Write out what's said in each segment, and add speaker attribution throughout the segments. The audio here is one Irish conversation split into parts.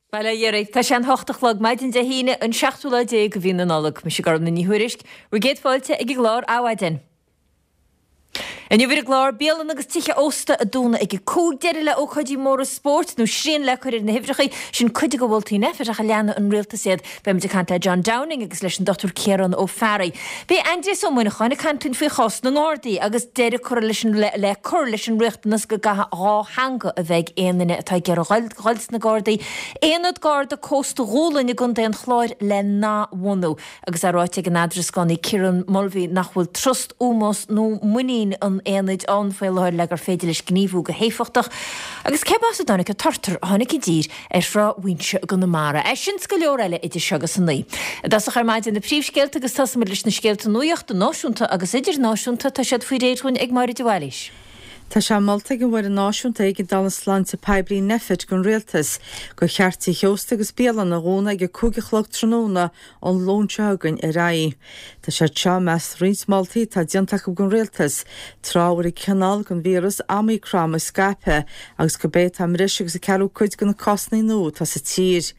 Speaker 1: Bail ó Dhia oraibh. Tá sé an hocht a chlog, maidin Dé hAoine, an seachtú lá déag de mhí na Nollag. Mise Gormfhlaith Ní Thuairisg. Bhur gcéad fáilte ag an gclár Adhmhaidin. Inniu ar an gclár, bialanna agus tithe ósta a dúnadh ag a 5, deireadh le ócáidí móra spóirt nó srian le cur ar na huimhreacha, sin cuid de mholtaí Nphet ach an leanfaidh an rialtas iad. Beimid ag caint le John Downing agus leis an Dr Ciarán Ó Fearraigh. Beidh Aindrias Ó Muineacháin ag caint linn faoi chás na nGardaí agus deireadh curtha leis an le cur leis an riachtanas go gcaithfidh dhá theanga a bheith ag aon duine atá ag iarraidh dhul sna Gardaí. Aonad Garda Cósta Dhúlainn i gContae an Chláir le n-athbhunú agus é ráite ag an eadrascánaí Kieran Mulvey nach bhfuil trust, ómós nó muinín an aonaid ann faoi láthair le gur féidir leis gníomhú go héifeachtach. Agus cé as a dtáinig an turtar a tháinig i dtír ar Thrá Mhuinseo i gConamara. É sin 's go leor eile idir seo agus a naoi. I dtosach ar maidin na príomhscéalta agus tosóimid leis na scéalta nuachta náisiúnta agus idirnáisiúnta. Tá siad faoi réir dhúinn ag Máire de Bhailís.
Speaker 2: Tá sé molta ag an bhFoireann Náisiúnta Éigeandála Sláinte Poiblí, Nphet, don Rialtas gur cheart tithe ósta agus bialanna a dhúnadh ag a 5 a chlog tráthnóna ón Luan seo chugainn ar aghaidh. Tá siad seo i measc roinnt moltaí atá déanta acu don Rialtas, tráth a bhfuil an cineál den víreas Omicron ag scaipeadh agus gurb é atá i mbreis agus an ceathrú cuid de na cásanna nua atá sa tír.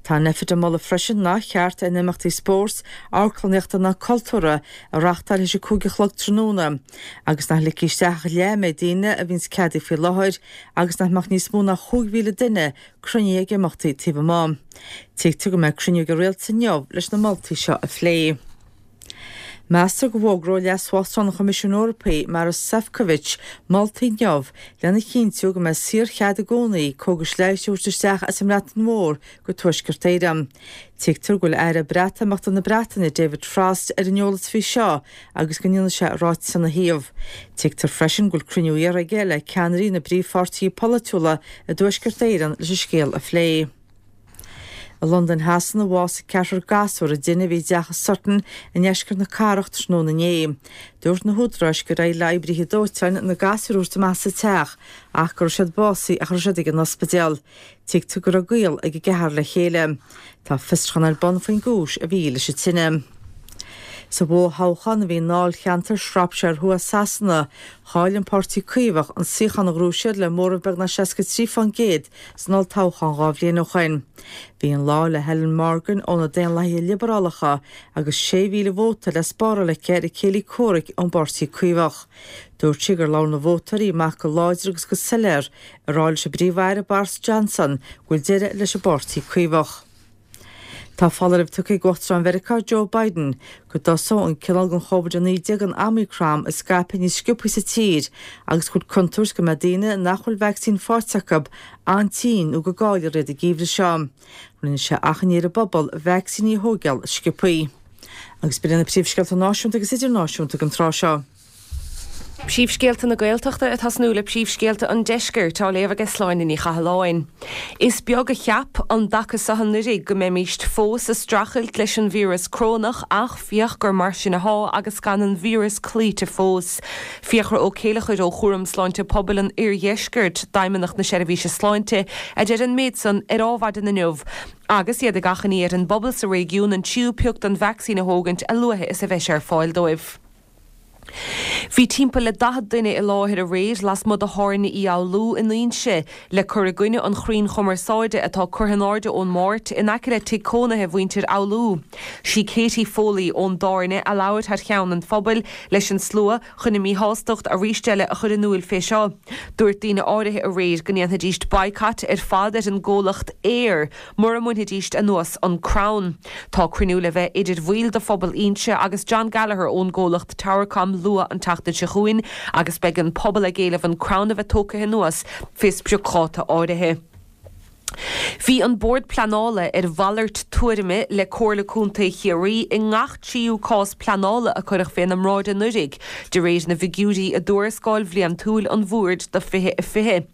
Speaker 2: Tá Nphet ag moladh freisin nár cheart aon imeachtaí spóirt, amharclannaíochta ná cultúrtha a reáchtáil théis a 5 a chlog tráthnóna agus nach ligfí isteach ach leath an méid daoine a bhíonns ceadaithe faoi láthair agus nach mbeadh níos mó ná 5,000 duine cruinnithe ag imeachtaí taobh amuigh. Tuigtear go mbeidh cruinniú ag an Rialtas inniu leis na moltaí seo a phlé. Meastar go bhfógróidh Leas-Uachtarán an Choimisiúin Eorpaigh, Maros Sefcovic, moltaí inniu lena chinntiú go mbeidh saorchead i gcónaí cógais leighis a thabhairt isteach as an mBreatain Mhór go Tuaisceart Éireann. Tuigtear go bhfuil Aire Breatimeachta na Breataine, David Frost, ar an eolas faoi seo agus go ndéanfaidh sé ráiteas ina thaobh. Tuigtear freisin go bhfuil cruinniú iarrtha aige le ceannairí na bpríomhpháirtithe polaitiúla i dTuaisceart Éireann leis an scéal a phlé. I Londain Shasana, bhásaigh ceathrar gasúr i dtine a bhí i dteach i Sutton i ndeisceart na cathrach tráthnóna inné. Dúirt na húdaráis gur éirigh le oibrithe dóiteáin na gasúir a thabhairt amach as an teach ach go raibh siad básaithe ach a raibh siad ag an ospidéal. Tuigtear go raibh gaol ag an gceathrar le chéile. Tá fiosrúchán ar bun faoin gcúis a bhí leis an tine. Sa bhfothoghchán a bhí i ndáilcheantar Shropshire Thuaidh Sasana, chaill an Páirtí Caomhach an suíochán a ghnóthaigh siad le móramh beagnach 63% san olltoghchán dhá bhliain ó shoin. Bhí an lá le Helen Morgan ó na Daonlathaithe Liobarálacha agus 6,000 vóta le spáráil aici ar a céile comhraic ón bPáirtí Caomhach. Dúirt sí gur labhair na vótóirí amach go láidir agus go soiléir ag rá leis an bPríomh-Aire Boris Johnson go bhfuil deireadh leis an bPáirtí Caomhach. Tá foláireamh tugtha ag Uachtarán Mheiriceá Joe Biden go dtosóidh an cineál den Chóvid-19 an Omicron ag scaipeadh níos sciobtha sa tír agus go bhfuil contúirt go mbeidh daoine nach bhfuil vacsaín faighte acu an-tinn nó go gcaillfear iad an geimhreadh seo. Rinne sé achainí ar an bpobal vacsaíní a thógáil sciobtha. Agus b'in iad na príomhscéalta náisiúnta agus idirnáisiúnta don tráth seo.
Speaker 3: Príomhscéalta na Gaeltachta ag tosnú le príomhscéalta an Deiscirt á léamh aige Sláine Ní Chathalláin. Is beag a cheap an dtaca seo anuiridh go mbeimíst fós a streachailt leis an víreas crónach ach féach gur mar sin athá agus gan an víreas cloíte fós. Fiachra Ó Céileachair ó Chúram Sláinte Pobail an Oirdheiscirt d'Fheidhmeannacht na Seirbhíse Sláinte a deir an méid san ar Ádhmhaidin inniu agus iad ag achainí ar an bpobal sa réigiún an tríú pioc den vacsaín a thógaint a luaithe is a bheidh sé ar fáil dóibh. Bhí timpeall le 40 duine i láthair aréir lasmuigh de Thábhairne Uí Fhoghlú in Inse le cur i gcoinne an chrainn chumarsáide atá curtha in airde ón Máirt in aice le tigh cónaithe mhuintir Fhoghlú. Sí Katie Foley ón dtábhairne a labhair thar cheann an phobail leis an slua chun a míshástacht arís eile a chur in iúil fé seo. Dúirt daoine áirithe aréir go ndéanfaidíst boycott ar fad ar an gcomhlacht Eir mura mbainfidíst anuas an crann. Tá cruinniú le bheith idir bhaill de phobal Inse agus John Gallagher ón gcomhlacht Towercom luath an tseachtain seo chugainn agus beidh an pobal ag éileamh an crann a bheith tógtha anuas fé spriocdháta áirithe. Bhí an Bord Pleanála ar mhalairt tuairime le Comhairle Contae Chiarraí i ngach tríú cás pleanála a cuireadh féna mbráid anuiridh, de réir na bhfigiúirí i dtuarascáil bhliantúil an Bhoird do 2020.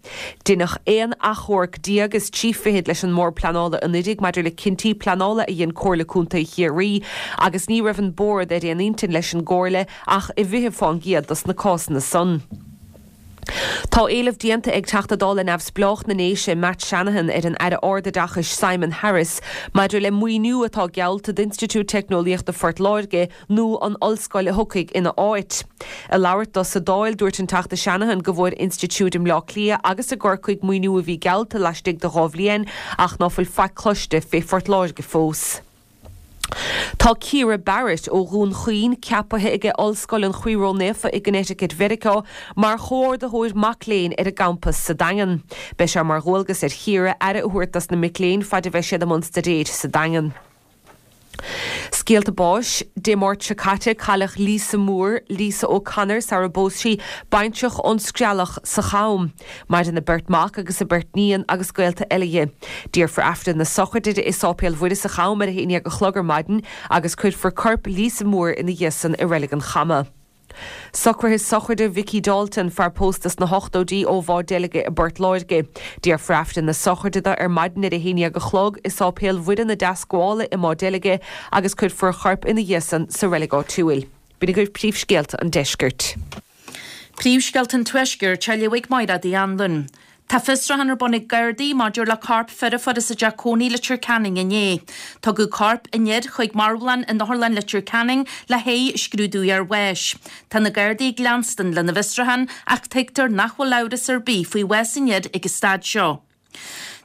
Speaker 3: Deineadh aon achomharc déag is trí fichid leis an mBord Pleanála anuiridh maidir le cinntí pleanála a dhein Comhairle Contae Chiarraí agus ní raibh an Bord ar aon intinn leis an gComhairle ach i bhfiche fán gcéad dos na cásanna san. Tá éileamh déanta ag Teachta Dála Neamhspleách na nDéise, Matt Shanahan, ar an Aire Ardoideachais Simon Harris maidir le maoiniú atá geallta d'Institiúid Teicneolaíochta Phort Láirge nó an ollscoil a thiocfaidh ina áit. Ag labhairt dó sa Dáil, dúirt an Teachta Shanahan go bhfuair institiúid i mBleá Cliath agus i gCorcaigh maoiniú a bhí geallta laistigh de dha bhliain ach ná fuil faic cloiste fé Phort Láirge fós. Tá Ciara Barrett ó Dhún Chaoin ceapaithe aige Ollscoil an Chroí Ró-Naofa i gConnecticut Mheiriceá mar chomhordaitheoir mac léinn ar an gcampas sa Daingean. Beidh sé mar dhualgas ar Chiara aire a thabhairt dos na mic léinn faid a bheidh siad i mbun staidéir sa Daingean. Scéalta báis, Dé Máirt seo caite cailleadh Lisa Moore, Lisa O'Connor sara bpós sí, baintreach ón Screallach sa Cham. Maireann a beirt mac agus a beirt níon agus gaolta eile dhi. Déarfar Aifreann na sochraide di i Sáipéal Mhuire sa Cham ar a haon dhéag a chlog ar maidin agus cuirfear corp Lisa Moore ina dhiaidh san i Reilig an Chama. Socruithe sochraide Mhicí Dalton, fear pósta sna hochtóidí ó Mhá Deilge i bPort Láirge. Déarfar Aifreann na sochraide do ar maidin ar a haon dhéag a chlog i Sáipéal Mhuire na Deascabhála i Má Deilge agus cuirfear a chorp ina dhiaidh san sa reilig áitiúil. B'in agaibh príomhscéalta an deiscirt.
Speaker 4: Príomhscéalta an Tuaiscirt á léamh ag Máire Uí Anluain. Tá fiosrúchán ar bun ag Gardaí maidir le corp fir a fuarthas i dteach cónaí i Leitir Ceanainn inné. Tugadh corp an fhir chuig marbhlann in Otharlann Leitir Ceanainn le haghaidh scrúdú iarbháis. Tá na Gardaí ag leanstan lena bhfiosrúchán ach tuigtear nach bhfuil amhras ar bith faoi bhás an fhir ag an staid seo.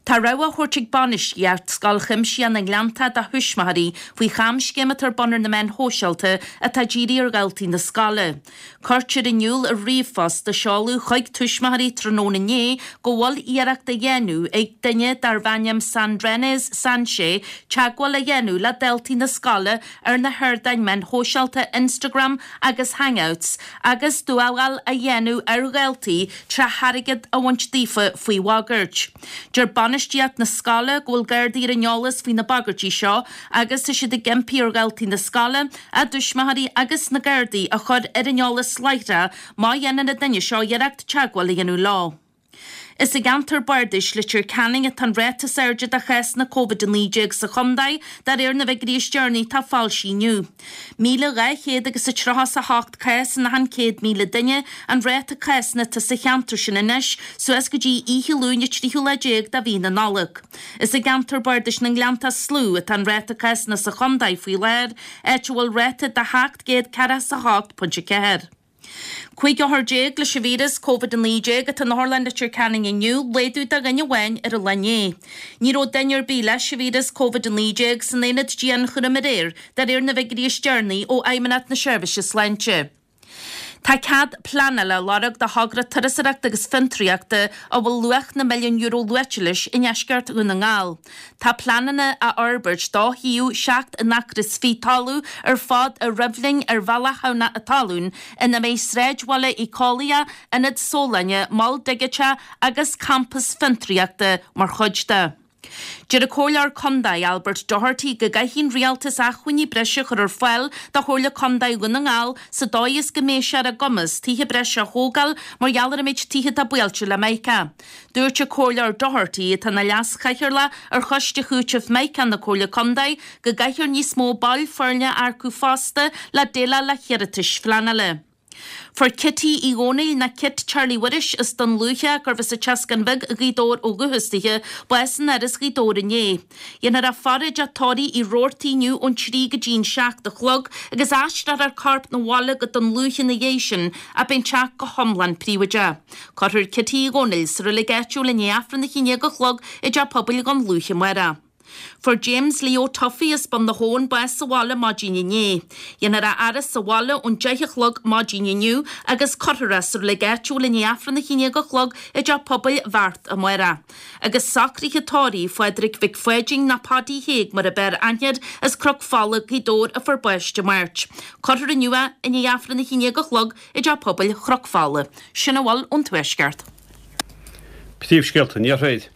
Speaker 4: Tá rabhadh á thabhairt ag bainistíocht Scoil Chuimsitheach na nGleanntach do thuismitheoirí faoi chamscéim atá ar bun ar na meáin shóisialta atá dírithe ar dhaltaí na scoile. Cuirtear in iúl i ríomhphost a seoladh chuig tuismitheoirí tráthnóna inné go bhfuil iarracht á dhéanamh ag duine darbh ainm Sandrenez Sanchez teagmháil a dhéanamh le daltaí na scoile ar na hardáin meáin shóisialta Instagram agus Hangouts agus dúmhál a dhéanamh ar dhaltaí tré airgead a bhaint daofa faoi bhagairt. Deir bainistíocht na scoile go bhfuil Gardaí ar an eolas faoi na bagairtí seo agus tá siad ag impí ar dhaltaí na scoile, a dtuismitheoirí agus na Gardaí a chur ar an eolas láithreach má dhéanann an duine seo iarracht teagmháil a dhéanamh leo. Is i gceantar bardais Leitir Ceanainn atá an ráta is airde de chásanna Covid-19 sa chontae, de réir na bhfigiúirí is deireanaí atá foilsithe inniu. 1,200 agus a 38 cás in achan 100,000 duine an ráta cásanna atá sa cheantar sin anois suas go dtí oíche Luain an tríú lá déag de mhí na Nollag. Is i gceantar bardais na nGleanntach is lú atá an ráta cásanna sa chontae faoi láthair, áit a bhfuil ráta de 748.4. 15 othar leis an víreas Covid-19 atá in Otharlann Leitir Ceanainn inniu, laghdú de dhuine amháin ar an lá inné. Ní raibh duine ar bith leis an víreas Covid-19 san aonad dianchúraim aréir, de réir na bhfigiúirí is deireanaí ó Fheidhmeannacht na Seirbhíse Sláinte. Tá cead pleanála á lorg do thogra turasóireachta agus fiontraíochta a bhfuil luach na milliún euro luaite leis i ndeisceart Dhún na nGall. Tá pleananna á fhorbairt do shuíomh 7 n-acra is fiche talamh ar fad i Roimhlinn ar Bhealach Thamhnach a' Talún ina mbeidh sráidbhaile éiceolaíoch, ionad sólainne, mol digiteach agus campas fiontraíochta mar chuid de. Deir an Comhairleoir Contae Albert Doherty go gcaithfidh an Rialtas acmhainní breise a chur ar fáil do Chomhairle Contae Dhún na nGall sa dóigh is go mbeidh sé ar a gcumas tithe breise a thógáil mar gheall ar an méid tithe atá buailte le Mica. Dúirt an Comhairleoir Doherty, atá ina leas-chathaoirleach ar Choiste Chúitimh Mica na Comhairle Contae, go gcaithfear níos mó baill foirne a earcú fosta le déileáil le hiarratais phleanála. Fuair Kitty Uí Dhónaill, nó Kit Charlie Mhuiris as Dún Lúiche, gurbh as an tSeascán Bheag i nGaoth Dobhair ó dhúchas dithe, bás in Áras Ghaoth Dobhair inné. Dhéanfar a faire i dteach tórraimh Uí Robhartaigh inniu ón 3 go dtí an 7 a chlog agus aistreofar a corp 'na bhaile go Dún Lúiche ina dhiaidh sin ach beidh an teach go hiomlán príobháideach. Cuirfear Kitty Uí Dhónaill sa reilig áitiúil i ndiaidh Aifreann a haon déag a chlog i dTeach Pobail Dhún Lúiche amárach. Fuair James Leo Tuffy as Bun na hAbhann bás sa bhaile maidin inné. Dhéanfar a fhaire sa bhaile ón deich a chlog maidin inniu agus cuirfear é sa reilig áitiúil i ndiaidh Aifreann a haon déag a chlog i dTeach Pobail Bheart amárach. Agus socruithe tórraimh Phádraig Mhic Pháidín nó Paddy Thaidhg mar ab fhearr aithne air as Cnoc Fola, Gaoth Dobhair a fuair bás Dé Máirt. Cuirfear inniu é i ndiaidh Aifreann a haon déag a chlog i dTeach Pobail Chnoc Fola. Sin a bhfuil ón Tuaisceart.
Speaker 5: Príomhscéalta an Iarthair.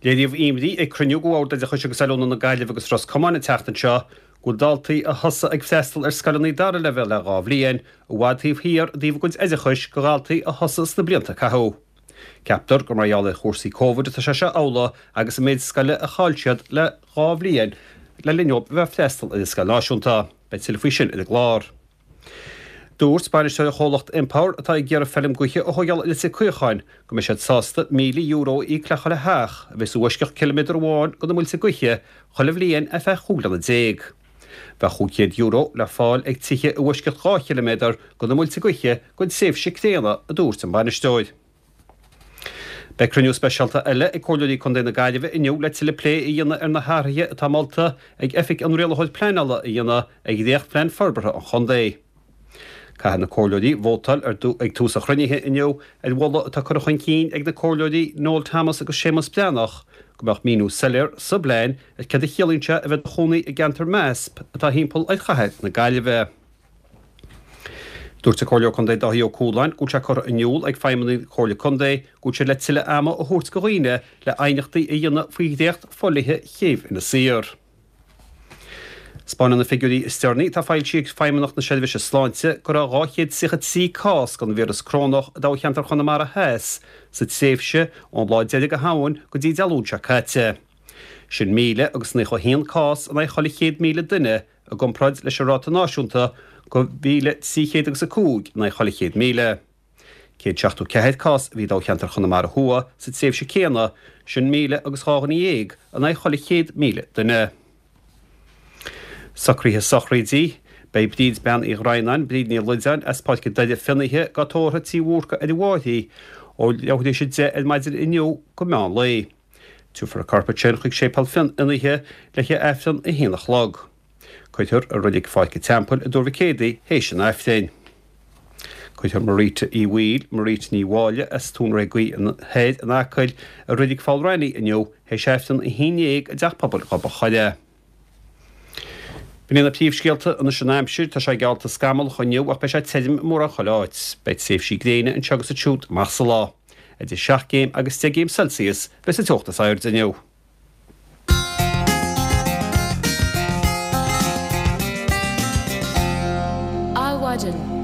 Speaker 5: Léiríodh imní ag cruinniú de Bhord Oideachais agus Oiliúna na Gaillimhe agus Ros Comáin an tseachtain seo go bhfuil daltaí a thosaigh ag freastal ar scoileanna dara leibhéal le dhá bhliain i bhfad taobh thiar i dtaobh a gcuid oideachais de dhaltaí a thosaigh sna blianta a caitheadh. Ceaptar gur mar gheall ar chúrsaí Covid atá sé seo amhlaidh agus an méid scoile a chaill siad le dhá bhliain le linn dóibh a bheith ag freastal ar an scoil náisiúnta. Beidh tuilleadh faoi sin ar an gclár. Dúirt bainisteoir an chomhlacht Empower, atá ag iarraidh feilm gaoithe a thógáil i Leitir Caocháin, go mbeidh siad sásta €1,000 a íoc le chuile theach a bheas i bhfoisceacht ciliméadar amháin de na muilte gaoithe chuile bhliain ar feadh 15 bliana. Bheadh €500 le fáil ag tithe i bhfoisceacht 2 chiliméadar de na muilte gaoithe don tréimhse céanna, a dúirt an bainisteoir. Beidh cruinniú speisialta eile ag Comhairleoirí Contae na Gaillimhe inniu le tuilleadh plé a dhéanamh ar na hathruithe atá molta ag Oifig an Rialaitheoir Pleanála a dhéanamh ar dhréachtphlean forbartha an chontae. Caithfidh na Comhairleoirí vótáil ag tús an chruinnithe inniu ar mholadh atá curtha chun cinn ag na Comhairleoirí Noel Thomas agus Séamus Breathnach go mbeadh míniú soiléir sa bplean ar céard a chiallaíonn sé a bheith i do chónaí i gceantar MASP atá thimpeall ar chathair na Gaillimhe. Dúirt an Comhairleoir Contae Dáithí Ó Cualáin go bhfuil sé curtha in iúl ag feidhmeannaigh na Comhairle Contae go bhfuil siad le tuilleadh ama a thabhairt go dhaoine le aighneachtaí a dhéanamh faoi dhréacht fodhlíthe Chéibh Inis Oírr. 'Spáineann na figiúirí is deireanaí atá foilsithe ag Feidhmeannacht na Seirbhíse Sláinte go raibh 233 cás den víreas corónach i dtoghcheantar Chonamara Theas sa tréimhse ón lá deiridh de Shamhain go dtí Dé Luain seo caite. Sin 1,091 cás in aghaidh chuile 100,000 duine i gcomparáid leis an ráta náisiúnta de 1,300 agus 5 in aghaidh chuile 100,000. 174 cás a bhí i dtoghcheantar Chonamara Thuaidh sa tréimhse céanna, sin 1,000 agus 12 dhuine in aghaidh chuile 100,000 duine. Socruithe sochraidí, Beidh Bríd Bean Uí Dhroighneáin, Bríd Ní Loideáin, as Páirc an Doire Fionnaithe, dhá tórramh Tí Bhúrca ar an bhFairche ó leathuair tar éis 10 ar maidin inniu go meán lae. Tabharfar a corp ansin chuig Séipéal Fionnaithe le haghaidh Aifreann a haon a chlog. Cuirfear i Reilig Pháirc an Teampaill i dTuar Mhic Éadaigh théis an Aifrinn. Cuirfear Marita Uí Bhaoill, Marita Ní Mháille as Tóin Ré Gaoith Thoir in Acaill i Reilig Pholl Raithní inniu théis Aifreann a haon dhéag i dTeach Pobail Ghob an Choire. B'in iad na príomhscéalta anois an aimsir, tá sé geallta scamallach inniu ach beidh sé tirim i mórán chuile áit. Beidh tréimhsí gréine anseo agus ansiúd amach sa lá. Idir 7 gcéim agus 10 gcéim Celsius a bheas an teocht is airde inniu.
Speaker 1: Adhmhaidin.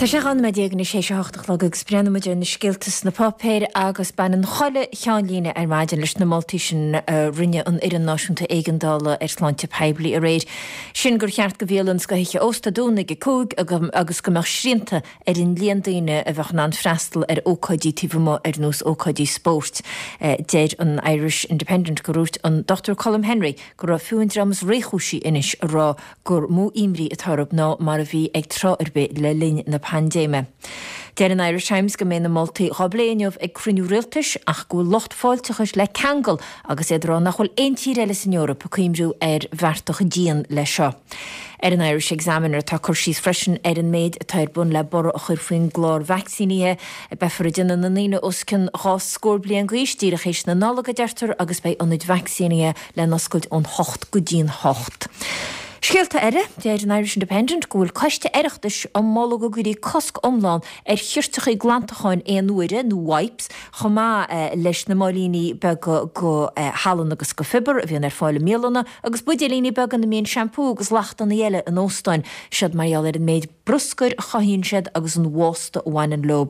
Speaker 1: Tá sé 12 nóiméad anois théis a hocht a chlog agus breathnóidh muid ar na scéalta sna páipéir agus baineann chuile cheannlíne ar maidin leis na moltaí sin a rinne an Fhoireann Náisiúnta Éigeandála ar Shláinte Poiblí aréir. Sin gur cheart do bhialanna is do thithe ósta dúnadh ag a 5 agus go mbeadh srianta ar an líon daoine a bheadh in ann freastal ar ócáidí taobh amuigh ar nós ócáidí spóirt. Deir an Irish Independent gur dhúirt an Dr Colm Henry go raibh fiú an dream is réchúisí anois ag rá gur mó imní atá orthu ná mar a bhí ag tráth ar bith le linn na paindéime. Deir an Irish Times go mbeidh na moltaí dhá bplé inniu ag cruinniú rialtais ach go bhfuil lucht fáilteachais le ceangal agus iad ag rá nach bhfuil aon tír eile san Eoraip ag cuimhniú ar bhearta chomh dian leis seo. Ar an Irish Examiner tá cur síos freisin ar an méid atá ar bun le borradh a chur faoin gclár vacsaínithe. Beifear ag déanamh na ndaoine os cionn 20 scór bliain d'aois díreach théis na Nollag, a deirtear, agus beidh ionaid vacsaínithe le n-oscailt ón hocht go dtí'n hocht. Scéalta eile, deir an Irish Independent go bhfuil coiste Oireachtais á moladh go gcuirfí cosc iomlán ar chirteachaí glantacháin aon uaire, nó wipes, chomh maith leis na máilíní beaga de shalann agus de phiobar a bhíonn ar fáil i mbialanna, agus buidéilíní beaga ina mbíonn seampú agus lachtanna eile in óstáin, siod mar gheall ar an méid bruscair a chothaíonn siad agus an bhásta a bhaineann leo.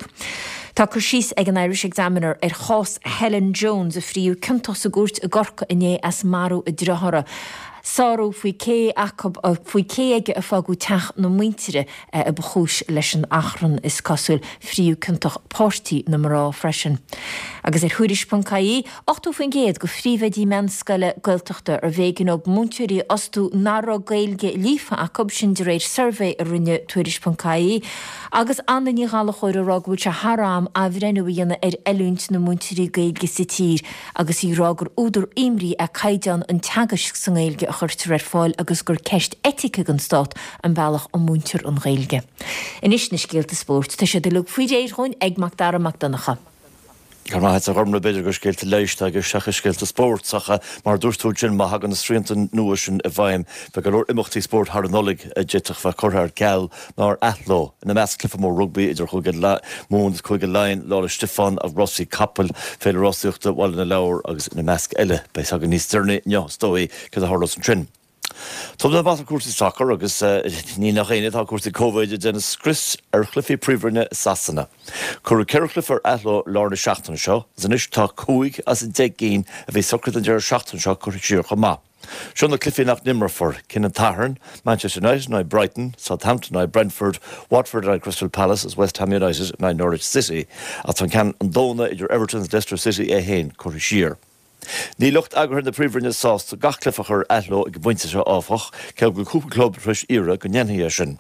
Speaker 1: Tá cur síos ag an Irish Examiner ar chás Helen Jones, a fríodh ciontach sa gcúirt i gCorcaigh inné as marú a driothára. Sárú faoi cé acu, faoi cé aige a fágadh teach na muintire a ba chúis leis an achrann, is cosúil. Fríodh ciontach páirtí na mná freisin. Agus ar Thuairisc.ie, 80% de phríomhoidí meánscoile Gaeltachta arbh éigean dóibh múinteoirí a fhostú nach raibh Gaeilge líofa acu, sin de réir suirbhé a rinne Tuairisc.ie. Agus Anna Ní Ghallchóir ag rá go bhfuil sé thar am athbhreithniú a dhéanamh ar oiliúint na múinteoirí Gaeilge sa tír agus í ag rá gur údar imní é caighdeán an teagaisc sa nGaeilge a chuirtear ar fáil agus gur ceist eitice don stát an bealach a múintear an Ghaeilge. Anois na scéalta spóirt, tá siad uilig faoi réir dhúinn ag Mac Dara Mac Donncha.
Speaker 6: Go raibh maith agat a Ghormlaith, b'fhéidir gur scéalta leighis atá i gceist seachas scéalta spóirt ach mar a dúirt tú ansin, má thagann na srianta nua sin i bhfeidhm, beidh go leor imeachtaí spóirt thar an Nollaig a d'fhéadfadh bheith curtha ar ceal nó ar athló, ina measc cluiche mór rugbaí idir Chúige Mumhan agus Cúige Laighean, Lá 'le Stiofáin, rásaí capall, Féile Rásaíochta Bhaile na Lobhar agus ina measc eile. Beidh a fhios againn níos deireanaí inniu is dóigh céard a tharlós ansin. Tógfaidh mé amach ar cúrsaí sacair agus ní nach ionadh tá cúrsaí Covid ag déanamh scrios ar chluichí Príomhroinne i Sasana. Cuireadh 4 chluiche ar athló i lár na seachtaine seo agus anois tá 5 as an 10 gcinn a bhí socraithe don deireadh seachtaine seo curtha siar chomh maith. Seo na cluichí nach n-imreofar, cinn an tSathairn, Manchester United in aghaidh Brighton, Southampton in aghaidh Brentford, Watford in aghaidh Crystal Palace agus West Ham United in aghaidh Norwich City. Ach tá an ceann an Domhnaigh idir Everton agus Leicester City é féin curtha siar. Níl lucht eagraithe na Príomhroinne sásta gach cluiche a chur ar athló ag an bpointe seo, áfach, cé go bhfuil cúpla club tar éis iarraidh go ndéanfaí é sin.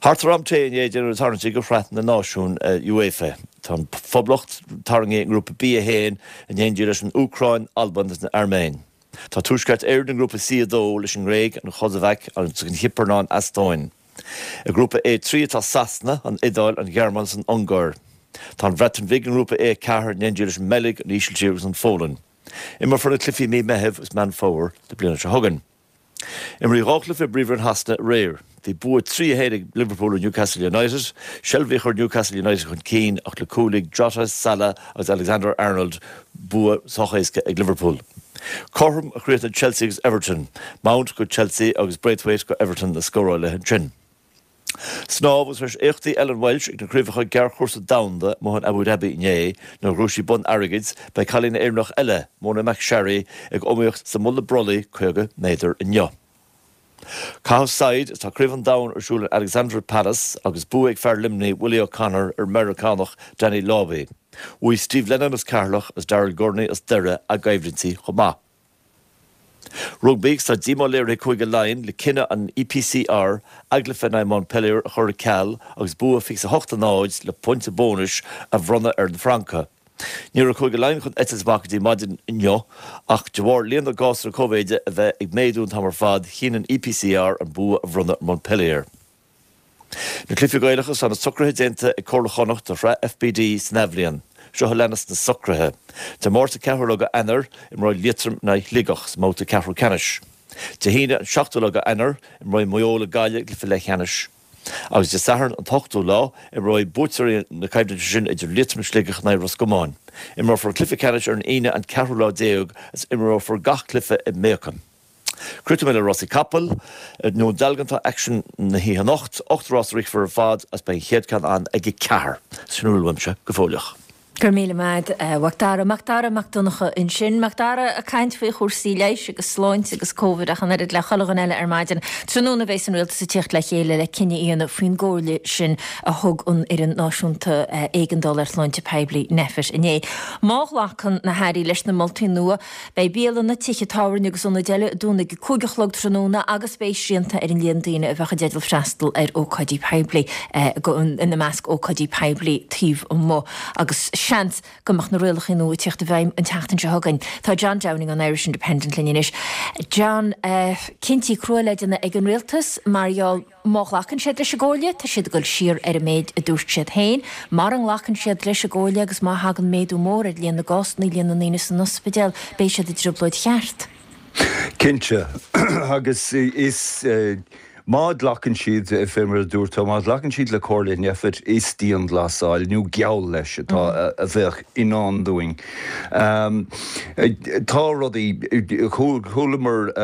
Speaker 6: Thart ar am tae inné déanadh na tarraingtí do Shraith na Náisiún UEFA. Tá an Phoblacht tarraingthe i nGrúpa B1 in éindí leis an Úcráin, Albain agus an Airméin. Tá Tuaisceart Éireann i nGrúpa C2 leis an nGréig, an Chosavaic agus an Chipir ná an Eastóin. I nGrúpa A3 atá Sasana, an Iodáil, an Ghearmáin agus an Ungáir. Tá an Bhreatain Bhig i nGrúpa A4 in éindí leis an mBeilg, an Ísiltír agus an Pholainn. Imreofar na cluichí i mí Meithimh agus Meán Fómhair na bliana seo chugainn. Imríodh 2 chluiche i bPríomhroinn Shasana aréir. Bhí bua 3-1 ag Liverpool ar Newcastle United. Shelvey a chuir Newcastle United chun cinn ach le cúil ag Jota, Salah agus Alexander Arnold, bua sách éasca ag Liverpool. Cothrom a chríochnaigh Chelsea agus Everton. Mount go Chelsea agus Braithwaite go Everton na scórálaithe ansin. Snámh agus tar éis éachtaí Ellen Walshe ag na Craobhacha Gearrchúrsa Domhanda amuigh in Abu Dhabi inné, nuair a ghnóthaigh sí bonn airgid, beidh cailín Éireannach eile, Mona McSharry, ag iomaíocht sa mulla brollaigh 50 méadar inniu. Caitheamh saighead Tá Craobh an Domhain ar siúl in Alexandra Palace agus bua ag fear Luimnigh, Willie O'Connor ar an Meiriceánach Danny Lauby. Bhuaigh Steve Lennon as Ceatharlach agus Daryl Gurney as Doire a gcoimhlintí chomh maith. Rugbaí agus tá díomá léirithe ag Cúige Laighean le cinneadh an EPCR a gcluiche in aghaidh Montpellier a chur ar ceal agus bua 28-0 le pointe bónais a bhronnadh ar na Francaigh. Ní raibh Cúige Laighean chun eitilt amach go dtí maidin inniu ach de bharr líon na gcásanna Covid a bheith ag méadú an t-am ar fad, chinn an EPCR an bua a bhronnadh ar Montpellier. Na Cluichí Gaelacha, Tá na socruithe déanta ag Comhairle Chonnacht do Shraith FBD san athbhliain. Seo a leanas na socruithe. Dé Máirt an 4ú lá de Eanáir, imreoidh Liatroim in aghaidh Shligeach sa mbabhta ceathrú ceannais. Dé hAoine an 7ú lá de Eanáir, imreoidh Maigh Eo le Gaillimh i gcluiche leathcheannais. Agus Dé Sathairn an t-ochtú lá, imreoidh buaiteoirí na coimhlinte sin idir Liatroim is Sligeach in aghaidh Ros Comáin. Imreofar an cluiche ceannais ar an Aoine an ceathrú lá déag agus imreofar gach cluiche i mBéacam. Críochnóidh mé le rásaí capall. I nDún Dealgan tá aicsean na hoíche anocht. 8 rás a rithfear ar fad agus beidh an chéad ceann ann ag 4. Sin a bhfuil uaimse go fóilleach.
Speaker 1: Go raibh míle maith agat, a Mhac Dara. Mac Dara Mac Donncha ansin. Mac Dara ag caint faoi chúrsaí leighis agus sláinte agus Covid ach an oiread le chuile dhuine eile ar maidin. Tráthnóna a bheas an Rialtas ag tíocht le chéile le cinneadh a dhéanamh faoin gcomhairle sin a thug an Fhoireann Náisiúnta Éigeandála ar Shláinte Poiblí, Nphet, inné. Má ghlacann na hairí leis na moltaí nua, Beidh bialanna, tithe tábhairne agus ionaid eile ag dúnadh ag a 5 a chlog tráthnóna agus beidh srianta ar an líon daoine a bheadh i dteideal freastal ar ócáidí poiblí, ina measc ócáidí poiblí taobh amuigh, agus seans go mbeadh na rialacha nua ag tíocht i bhfeidhm an tseachtain seo chugainn. Tá John Downing ón Irish Independent linn anois. John, cinntí crua le déanamh ag an rialtas mar gheall. Má ghlacann siad leis an gcomhairle, tá siad ag dul siar ar an méid a dúirt siad féin. Mara nglacann siad leis an gcomhairle agus má thagann méadú mór ar líon na gcásanna, líon na ndaoine san ospidéal, beidh siad i dtrioblóid cheart.
Speaker 7: Cinnte. Agus is, má ghlacann siad, fé mar a dúirt tú, má ghlacann siad le comhairle Nphet, is dianghlasáil, nó geall leis, atá, a bheadh i ndán dúinn. Tá rudaí, chualamar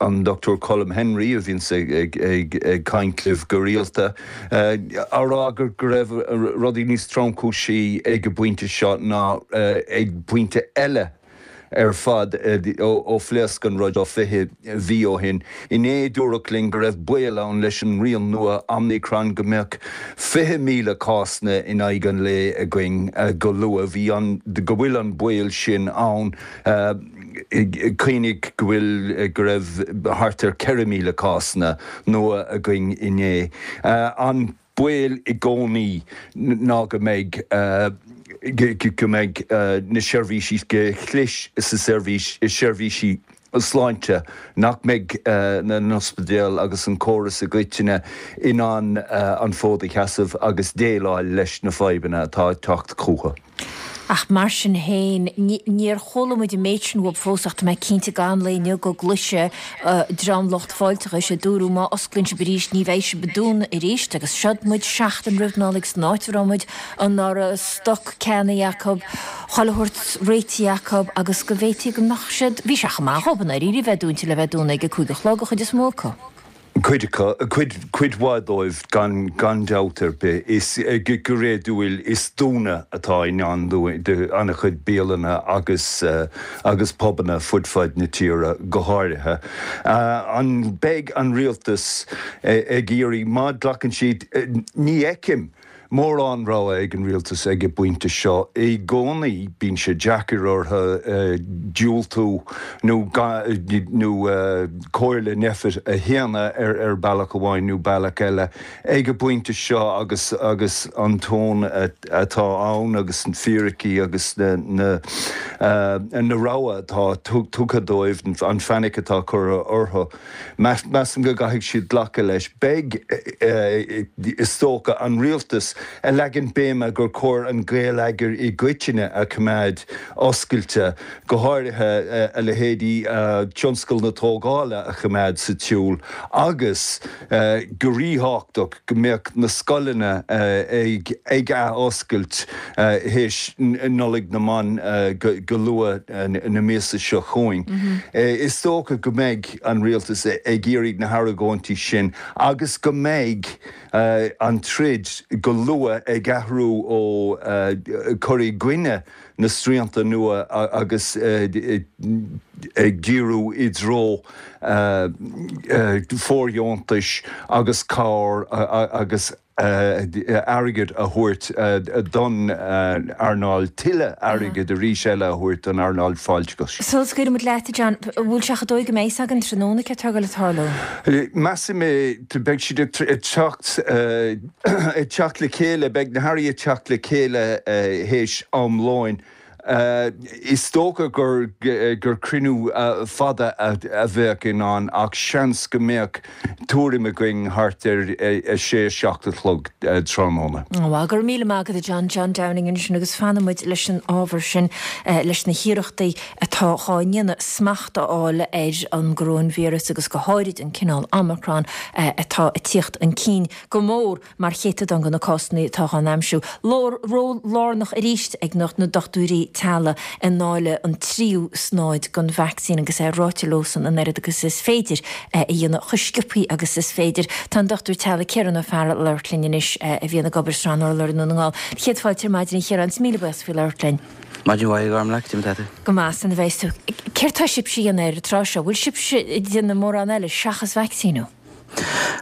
Speaker 7: an Dr Colm Henry, a bhíonns ag caint libh go rialta, á rá go raibh rudaí níos tromchúisí ag an bpointe seo ná ag pointe eile ar fad ó phléasc an rud seo 20 mhí ó shin. Inné dúradh linn go raibh baol ann leis an rian nua Omicron go mbeadh 20,000 cásanna in aghaidh an lae againn go luath. Bhí an, go bhfuil an baol sin ann. Cuimhnigh go bhfuil, go raibh thart ar 4,000 cásanna nua againn inné. An baol i gcónaí ná go mbeidh go mbeidh na seirbhísí, go chlis sa seirbhís, seirbhísí sláinte, nach mbeidh na n-ospidéal agus an córas i gcoitinne in ann an fód a sheasamh agus déileáil leis na fadhbanna atá ag teacht chucu.
Speaker 1: Ach mar sin féin, níor chuala muid an méid sin uathub fós ach tá mé cinnte gan lae inniu go gcloisfidh dream lucht fáilteachais ag dúradh má osclaíonn sibh arís ní bheidh sibh ag dúnadh arís agus seod muid seachtain roimh Nollaig san áit a raibh muid anuraidh, stoc ceannaithe acu, chuile shórt réitithe acu agus go bhféadfaí go mbeadh siad, bhí sé chomh maith dhóibh i ndáiríre a bheith dúnta le bheith dúnadh ag a 5 a chlog an chuid is mó acu.
Speaker 7: Cuid acu, cuid, cuid mhaith dóibh gan, gan dabht ar bith. Is, go réadúil, is dúnadh atá i ndán d'an-chuid bialanna agus, agus pubanna fud fad na tíre go háirithe. An mbeidh an rialtas ag iarraidh, má ghlacann siad, ní fheicim mórán rogha ag an rialtas ag an bpointe seo. I gcónaí bíonn sé deacair orthu diúltú nó nó comhairle Nphet a shéanadh ar bealach amháin nó bealach eile. Ag an bpointe seo agus agus an tón atá ann agus na fíricí agus na na na rogha atá tugtha dóibh, an fainic atá curtha orthu, Measaim go gcaithfidh siad glacadh leis. Beidh, is dócha, an rialtas ag leagan béime gur chóir an geilleagar i gcoitinne a choimeád oscailte, go háirithe a leithéidí tionscal na tógála a choimeád sa tsiúl agus, go ríthábhachtach, go mbeadh na scoileanna ag ath-oscailt théis Nollaig na mBan go luath na míosa seo chugainn. Is dócha go mbeidh an rialtas ag iarraidh na hargóintí sin agus go mbeidh an troid go luath ag athrú ó cur i gcoinne na srianta nua agus ag díriú i dtreo fóirdheontais agus cabhair agus airgead a thabhairt don earnáil, tuilleadh airgid arís eile a thabhairt don earnáil fáilteachais.
Speaker 1: Sula scaoileann muid leat, a John, an bhfuil sé chomh dóigh go mbeidh a fhios againn tráthnóna céard atá ag dul a tarlú?
Speaker 7: Measaim é, beidh siad ag teacht ag teacht le chéile, beidh na hairí ag teacht le chéile théis am lóin. Is dócha gur gur cruinniú fada a bheadh i ndán ach seans go mbeadh tuairim againn thart ar a sé, 7 a chlog tráthnóna.
Speaker 1: Bhuel, go raibh míle maith agat a John, John Downing ansin agus fanfaidh muid leis an ábhar sin, leis na hiarrachtaí atá dhá ndéanamh smacht a fháil ar an gcoróinvíreas agus go háirid an cineál Omicron atá ag tíocht chun cinn go mór mar chéatadán de na cásanna atá dhá n-aimsiú. Ról lárnach arís ag na dochtúirí teaghlaigh i ndáileadh an tríú snáid den vacsaín agus é ráite leosan an oiread agus is féidir a dhéanamh, chomh sciobthaí agus is féidir. Tá an Dochtúir Teaghlaigh Ciarán Ó Fearghail ag labhairt linn anois a bhíonn ag obair i Srath an Urláir i nDún na nGall. Céad fáilte ar maidin a Chiaráin, is míle buíochas faoi labhairt linn.
Speaker 8: Maidin mhaith, a Ghormlaith, cad é mar atá tú?
Speaker 1: Go maith, san a bheas tú. Céard tá sibhse a dhéanamh ar an tráth seo? Bhfuil sibhse ag déanamh mórán eile seachas vacsaíniú?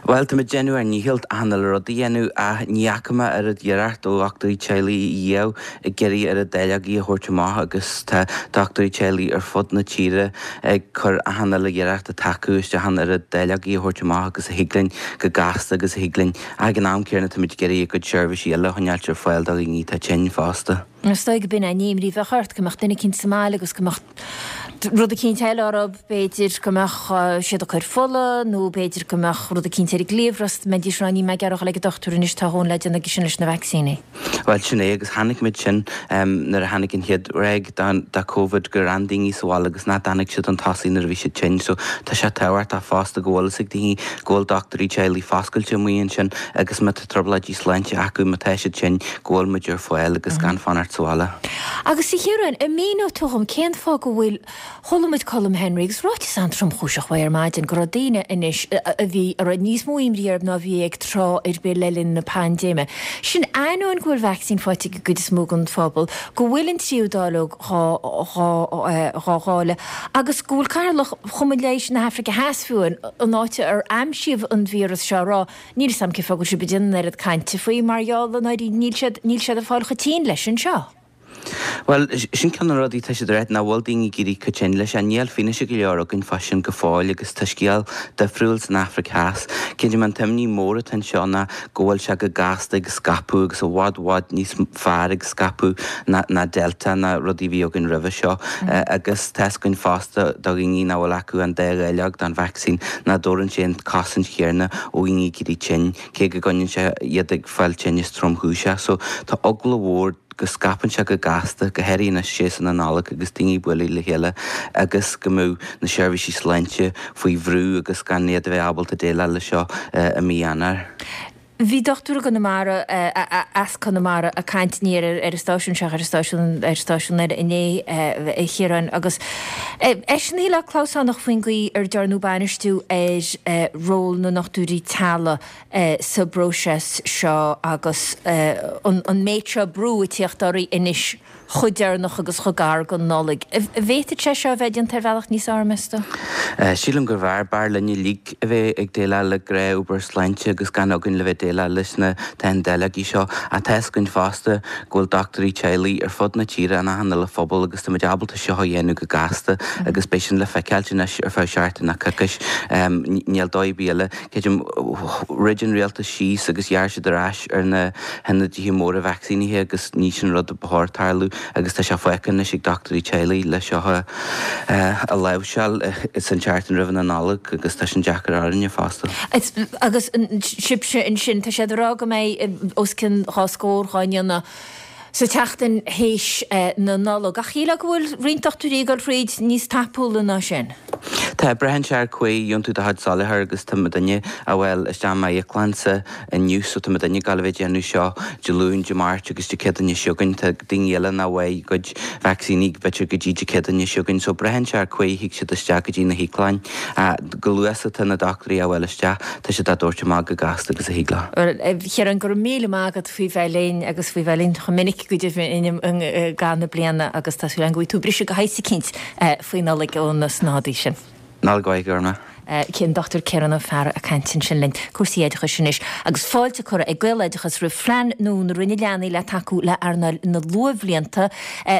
Speaker 8: Bhuel, tá muid ag déanamh ár ndícheall achan uile rud a dhéanamh ach ní fhaca mé oiread iarracht ó dhochtúirí teaghlaigh riamh ag iarraidh oiread dáileogaí a thabhairt amach agus tá dochtúirí teaghlaigh ar fud na tíre ag cur achan uile iarracht atá acu isteach an oiread dáileogaí a thabhairt amach agus a thig linn go gasta agus a thig linn ach ag an am céanna tá muid ag iarraidh a gcuid seirbhísí eile a choinneáilt ar fáil do dhaoine atá tinn fosta.
Speaker 1: Is dóigh go b'in an imní a bheadh ort, go mbeadh duine eicínt sa mbaile agus go mbeadh rud eicínt eile orthu, b'fhéidir go mbeadh siad ag cur fola nó b'fhéidir go mbeadh rud eicínt ar a gcliabhras, mbeidís ag rá níl mé ag iarraidh a dhul ag an dochtúir anois, tá a dhóthain le déanamh aige sin leis na vacsaíní.
Speaker 8: Bhuel, sin é, agus chonaic muid sin nuair a tháinig an chéad ráig de Covid gur fhan daoine sa bhaile agus nach dtáinig siad chun tosaigh nuair a bhí siad tinn. So tá sé tábhachtach fosta go bhfuil fhios ag daoine go bhfuil dochtúirí teaghlaigh foscailte amuigh ansin agus má tá trioblóidí sláinte acu, má tá siad tinn, go bhfuil muid ar fáil agus gan fanacht sa bhaile.
Speaker 1: Agus a Chiaráin, an míneoidh tú dhom cén fáth go bhfuil, chuala muid Colm Henry agus ráiteas an-tromchúiseach uaidh ar maidin go raibh daoine anois a bhí, a raibh níos mó imní orthu ná a bhí ag tráth ar bith le linn na paindéime. Sin ainneoin go bhfuil vacsaín faighte ag an gcuid is mó den phobal, go bhfuil an tríú dáileog dhá, dhá, dhá dháileadh agus go bhfuil Cathaoirleach Chumann Leighis na hAfraice Theas fiú, an áit ar aimsíodh an víreas seo, ag rá Níl 'fhios a'm cén fáth go bhfuil sibh ag déanamh an oiread cainte faoi mar gheall i ndáiríre níl siad, níl siad ag fáil chomh tinn leis anseo.
Speaker 8: Bhuel, sin ceann de na rudaí atá siad a rá, nach bhfuil daoine ag éirí chomh tinn leis. Níl fianaise go leor againn fá sin go fóill agus tá scéal difriúil san Afraic Theas. Cinnte, an t-imní mór atá anseo ná go bhfuil sé go gasta ag scaipeadh agus i bhfad bhfad níos fearr ag scaipeadh ná ná Delta ná rudaí a bhí againn roimhe seo. Agus tá 'fhios againn fosta do dhaoine nach bhfuil acu an dá dháileog den vacsaín nach dtabharann sé an chosaint chéanna ó dhaoine ag éirí tinn, cé go gcoinníonn sé iad ag fáil tinneas tromchúiseach. So tá eagla mhór go scaipeann sé go gasta, go háirithe anois séasúr na Nollag agus daoine ag bualadh le chéile agus go mbeadh na seirbhísí sláinte faoi bhrú agus gan iad a bheith ábalta déileáil leis seo i mí Eanáir.
Speaker 1: Bhí dochtúir i gConamara, as Conamara, ag caint ní ar an stáisiún seo ach ar an stáisiún, ar stáisiún eile inné, a Chiaráin, agus eisean a shílfeá clamhsánach faoin gcaoi ar dearnadh bainistiú ar ról na ndochtúirí teaghlaigh sa bpróiseas seo agus an méid seo brú ag tíocht orthu anois chomh deireanach agus chomh gar don Nollaig. An bhféadfadh sé seo a bheith déanta ar bhealach níos fearr, meas tú?
Speaker 8: Sílim gurbh fhearr. B'fhearr linn uilig a bheith ag déileáil le gnáthobair sláinte agus gan againn le bheith déileáil leis na teanndáileogaí seo. Ach tá fhios againn fosta go bhfuil dochtúirí teaghlaigh ar fud na tíre in achan uile phobal agus táimid ábalta seo a dhéanamh go gasta agus beidh sin le feiceáilt anois ar feadh seachtain nó coicís. Níl dóigh ar bith eile. Creidim, throid an rialtas síos agus ghearr siad ar ais ar na hionadaithe móra vacsaínithe agus ní sin rud a ba chóir tarlú agus tá sé fágtha anois ag dochtúirí teaghlaigh le seo a láimhseáil san tseachtain roimh na Nollag agus tá sin deacair orainne fosta.
Speaker 1: Agus sibhse ansin, tá siad ag rá go mbeidh os cionn dhá scór dhá ndéanamh sa tseachtain théis na Nollag. Ach shílfeá go bhfuil roinnt dochtúirí ag dul thríd níos tapúla ná sin.
Speaker 8: Tá, braitheann sé ar cá huair a gheobhann tú do chuid soláthar agus tá muidinne a bhfuil isteach i m'íoclannsa inniu so tá muidinne ag gabháil a bheith ag déanamh seo Dé Luain, Dé Máirt agus Dé Céadaoine seo chugainn. Tá daoine eile nach bhfaighidh a gcuid vacsaíní b'fhéidir go dtí Dé Céadaoine seo chugainn so braitheann sé ar cá huair a thig siad isteach go dtí na híoclainn. Chomh luath is atá na dochtúirí a bhfuil isteach, tá siad á dtabhairt amach chomh gasta agus a thig leo.
Speaker 1: Bhuel, a Chiaráin, go raibh míle maith agat faoi bheith linn agus faoi bheith linn chomh minic go deimhin i gcaitheamh na bliana agus tá súil agam go bhfaighidh tú briseadh de shaghas eicínt faoi Nollaig ó na snádaí sin.
Speaker 8: Nollaig mhaith, go raibh maith.
Speaker 1: An Dr Ciarán Ó Fearraigh ag caint ansin linn. Cúrsaí oideachais anois agus fáilte curtha ag Gaeloideachas roimh phlean nua na Roinne Leanaí le tacú le earnáil na luathbhlianta.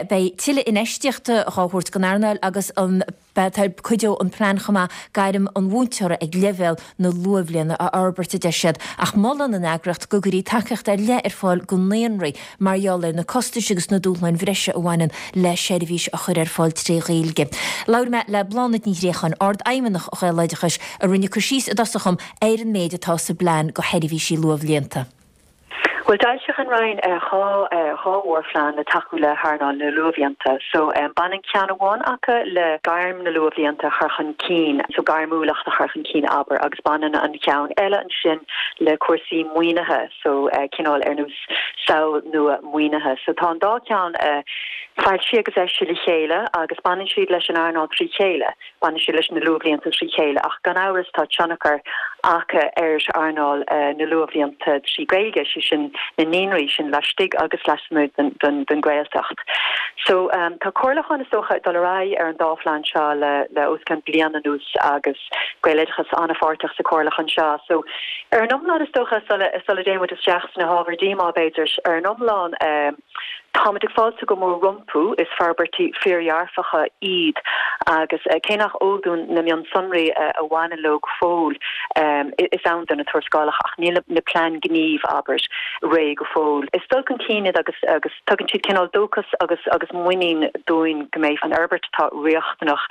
Speaker 1: Beidh tuilleadh infheistíochta dhá thabhairt don earnáil agus an. Cuideoidh an plean chomh maith gairm an mhúinteora ag leibhéal na luathbhliana a fhorbairt, a deir siad, ach molann an eagraíocht go gcuirfí tacaíocht ar leith ar fáil go naíonraí mar gheall ar na costais agus na dúshláin bhreise a bhaineann le seirbhís a chur ar fáil tré Ghaeilge. Labhair mé le Bláthnaid Ní Ghréacháin, Ard-Fheidhmeannach Ghaeloideachais, a rinne cur síos i dtosach dhom ar an méid atá sa bplean go sheirbhísí luathbhlianta.
Speaker 9: Bhuel, d'fhoilsigh an Roinn 2 mhórphlean le tacú le hearnáil na luathbhlianta. So, baineann ceann amháin acu le gairm na luathbhlianta a chur chun cinn, so gairmiúlacht a chur chun cinn, abair, agus baineann an ceann eile ansin le cúrsaí maoinithe, so cineál ar nós samhail nua maoinithe. So tá an dá cheann foilsithe agus eisithe le chéile agus baineann siad leis an earnáil trí chéile. Baineann siad leis na luathbhlianta trí chéile ach gan amhras tá tionchar acu ar earnáil na luathbhlianta trí Ghaeilge, sé sin na naíonraí sin laistigh agus lasmuigh den Ghaeltacht. So tá comhairliúchán is dócha ag dul ar aghaidh ar an dá phlean seo le os cionn bliain anuas agus Gaeloideachas an-pháirteach sa chomhairliúchán seo. So ar an iomlán is dócha sula dtéann muid isteach sna hábhair díomá b'fhéidir, ar an iomlán, Táimid ag fáiltiú go mór rompu, is forbairtí fíordhearfacha iad agus cé nach eol dúinn na mionsonraí a bhaineann leo go fóill, is ann do na tuarascálacha ach níl na plean gnímh, abair, réidh go fóill. Is dul chun cinn iad agus agus tugann siad cineál dóchas agus agus muinín dúinn go mbeidh an fhorbairt atá riachtanach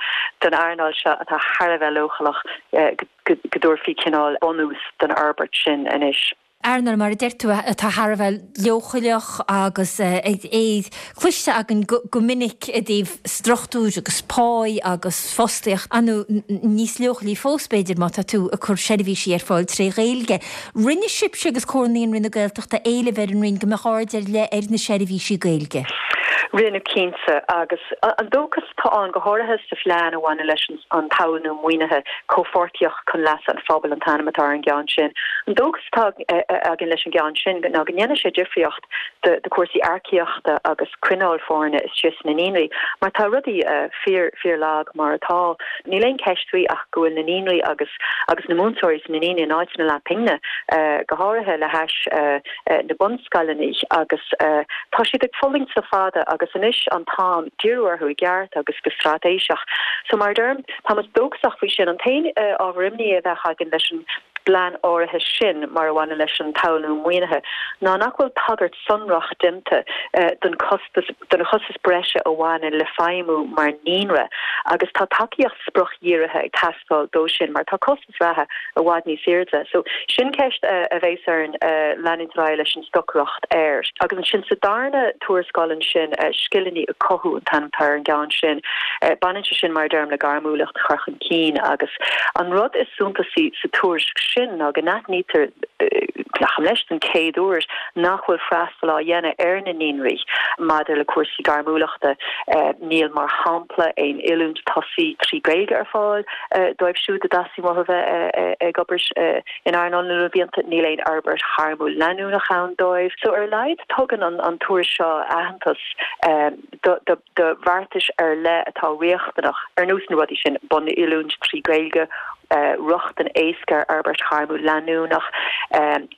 Speaker 9: don earnáil seo atá thar a bheith leochaileach go dtabharfaí cineál bunús don fhorbairt sin anois.
Speaker 1: Earnáil, mar a deir tú, atá thar a bheith leochaileach agus é cloiste againn go minic i dtaobh struchtúir agus páí agus fostaíocht, ar ndóigh níos leochailí fós, b'fhéidir, má tá tú ag cur seirbhísí ar fáil tré Ghaeilge. Rinne sibhse agus Comhar Naíonraí na Gaeltachta éileamh ar an Roinn go mbeadh aird ar leith ar na seirbhísí Gaeilge.
Speaker 9: Rinneadh, cinnte, agus an dóchas atá ann, go háirithe sa phlean a bhaineann leis an. an tsamhail nua maoinithe, Comhpháirtíocht chun Leasa an Phobail an t-ainm atá ar an gceann sin. An dóchas atá againn leis an gceann sin ná go ndéanfaidh sé difríocht do chúrsaí earcaíochta agus coinneáil foirne istigh sna naíonraí mar tá rudaí fíor, fíor lag mar atá. Níl aon cheist faoi ach go bhfuil na naíonraí agus agus na múinteoirí sna naíonraí in áit na leathphingine, go háirithe le hais na bunscoileanna agus tá siad ag fulaingt le fada agus anois an t-am díriú orthu i gceart agus go straitéiseach. So mar a deirim, tá muid dóchasach faoi sin. An t-aon ábhar imní a bheadh againn leis an bplean áirithe sin mar a bhaineann leis an tsamhail nua maoinithe ná nach bhfuil tagairt sonrach déanta don chostas don chostas breise a bhaineann le feidhmiú mar naíonra. Agus tá tacaíocht spriocdhírithe ag teastáil dó sin mar tá costas reatha i bhfad níos airde. So sin ceist a bheas orainn leanúint ar aghaidh leis an stocaireacht air. Agus ansin sa darna tuarascáil ansin, Scileanna a Chothú an t-ainm atá ar an gceann sin, baineann sé sin mar a deirim le gairmiúlacht a chur chun cinn agus an rud is suntasaí sa tuairisc sin ná go n-aithnítear, glacaim leis, den chéad uair nach bhfuil freastal á dhéanamh ar na naíonraí maidir le cúrsaí gairmiúlachta. Níl, mar shampla, aon oiliúint tosaigh trí Ghaeilge ar fáil dóibh siúd a dteastaíonn uathu bheith ag obair in earnáil na luathbhlianta. Níl aon fhorbairt ghairmiúil leanúnach ann dóibh. So, ar a laghad, tugann an tuairisc seo aitheantas do bheartais ar leith atá riachtanach, ar nós na rudaí sin, bunoiliúint trí Ghaeilge, rochtain éasca ar fhorbairt ghairmiúil leanúnach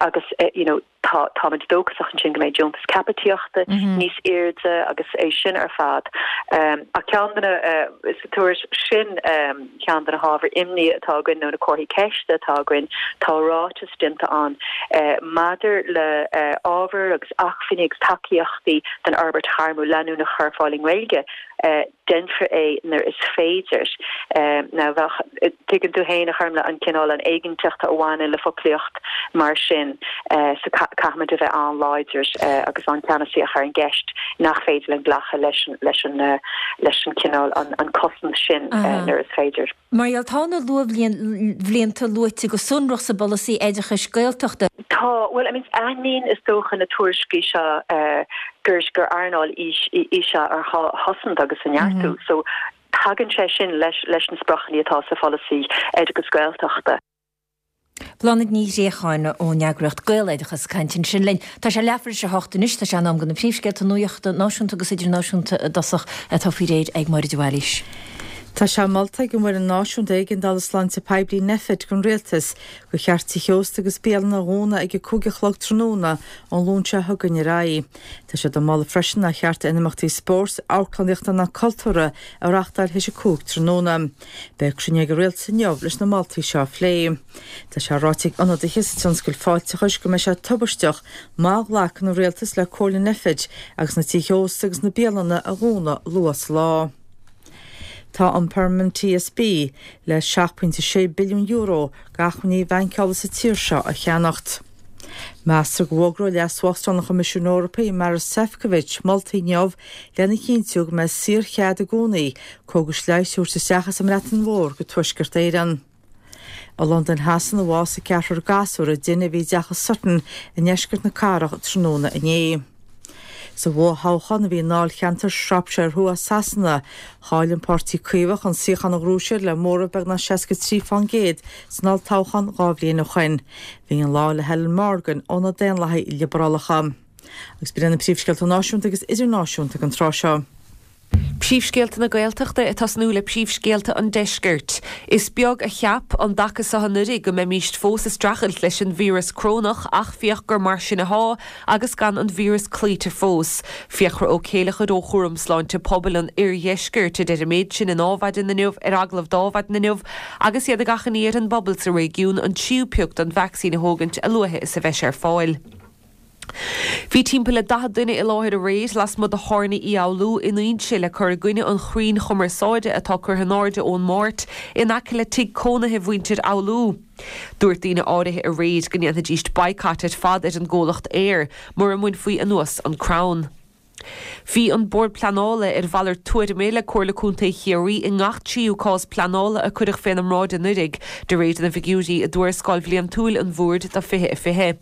Speaker 9: agus, you know, Tá, táimid dóchasach ansin go mbeidh deontas caipitíochta níos airde agus é sin ar fad. Ach ceann de na, sa tuairisc sin, ceann de na hábhair imní atá againn nó na comharthaí ceiste atá againn, tá ráiteas déanta ann maidir le ábhair agus acmhainní agus tacaíochtaí don fhorbairt ghairmiúil leanúnach a chur ar fáil i nGaeilge. Déanfar é nuair is féidir. Now bheadh, tuigeann tú féin, a Ghormfhlaith, an cineál, an éiginnteacht a bhaineann le foclaíocht mar sin so caithfimid a bheith an-láidir agus an-cheannasaíoch ar an gceist nach féidir linn glacadh leis an, leis an, leis an cineál, an cosaint sin nuair is féidir.
Speaker 1: Mar gheall, tá na luathbhlianta luaite go sonrach sa bpolasaí oideachais Gaeltachta.
Speaker 9: Tá, bhuel, I mean, aithníonn is dócha na tuairiscí seo gur gur earnáil í í seo ar ghá a chosaint agus a neartú. So, tagann sé sin leis leis na spriocanna atá sa pholasaí oideachais Gaeltachta.
Speaker 1: Bláthnaid Ní Ghréacháin ón eagraíocht Gaeloideachas ag caint ansin linn. Tá sé leathuair tar éis a hocht anois, tá sé in am do na príomhscéalta nuachta náisiúnta agus idirnáisiúnta i dtosach atá faoi réir ag Máire de Bhailís.
Speaker 2: Tá sé molta ag an bhFoireann Náisiúnta Éigeandála Sláinte Poiblí, Nphet, don Rialtas gur cheart tithe ósta agus bialanna a dhúnadh ag a 5 a chlog tráthnóna ón Luan seo chugainn ar aghaidh. Tá sé á mholadh freisin nár cheart aon imeachtaí spóirt, amharclannaíochta ná cultúrtha a reáchtáil théis a 5 tráthnóna. Beidh cruinniú ag an Rialtas inniu leis na moltaí seo a phlé. Tá sé ráite ag ionadaithe sa tionscal fáilteachais go mbeidh sé tubaisteach má ghlacann an Rialtas le comhairle Nphet agus na tithe ósta agus na bialanna a dhúnadh luath sa lá. Tá an Permanent TSB le €7.6 billiún d'acmhainní bhaincála sa tír seo a cheannacht. Meastar go bhfógróidh Leas-Uachtarán an Choimisiúin Eorpaigh, Maros Sefcovic, moltaí inniu lena chinntiú go mbeidh saorchead i gcónaí cógais leighis a thabhairt isteach as an mBreatain Mhór go Tuaisceart Éireann. I Londain Shasana a bhásaigh ceathrar gasúr i dtine a bhí i dteach i Sutton i ndeisceart na cathrach tráthnóna inné. Sa bhfothoghchán a bhí i ndáilcheantar Shropshire Thuaidh Sasana, chaill an Páirtí Caomhach an suíochán a ghnóthaigh siad le móramh beagnach 63% san olltoghchán 2 bhliain ó shoin. Bhí an lá le Helen Morgan ó na Daonlathaigh Liobrálacha. Agus b'in iad na príomhscéalta náisiúnta agus idirnáisiúnta ag an tráth seo.
Speaker 3: Príomhscéalta na Gaeltachta ag tosnú le príomhscéalta an Deiscirt. Is beag a cheap an dtaca seo anuraidh go mbeimíst fós ag streachailt leis an víreas crónach ach féach gur mar sin athá agus gan an víreas cloíte fós. Fiachra Ó Céileachair ó Chúram Sláinte Pobail an Oirdheiscirt a deir an méid sin in Adhmhaidin inniu ar agallamh d'Adhmhaidin inniu agus iad ag achainí ar an bpobal sa réigiún an tríú pioc den vacsaín a thógaint a luaithe is a bheidh sé ar fáil. Bhí timpeall le 40 duine i láthair aréir lasmuigh de Thábhairne Uí Fhoghlú in Inse le cur i gcoinne an chrainn chumarsáide atá curtha in airde ón Máirt in aice le tigh cónaithe mhuintir Fhoghlú. Dúirt daoine áirithe aréir go ndéanfaidíst boycott ar fad ar an gcomhlacht Eir mura mbainfí anuas an crann. Bhí an Bord Pleanála ar mhalairt tuairime le Comhairle Contae Chiarraí i ngach tríú cás pleanála a cuireadh féna mbráid anuiridh, de réir na bhfigiúirí i dtuarascáil bhliantúil an Bhoird do 2020.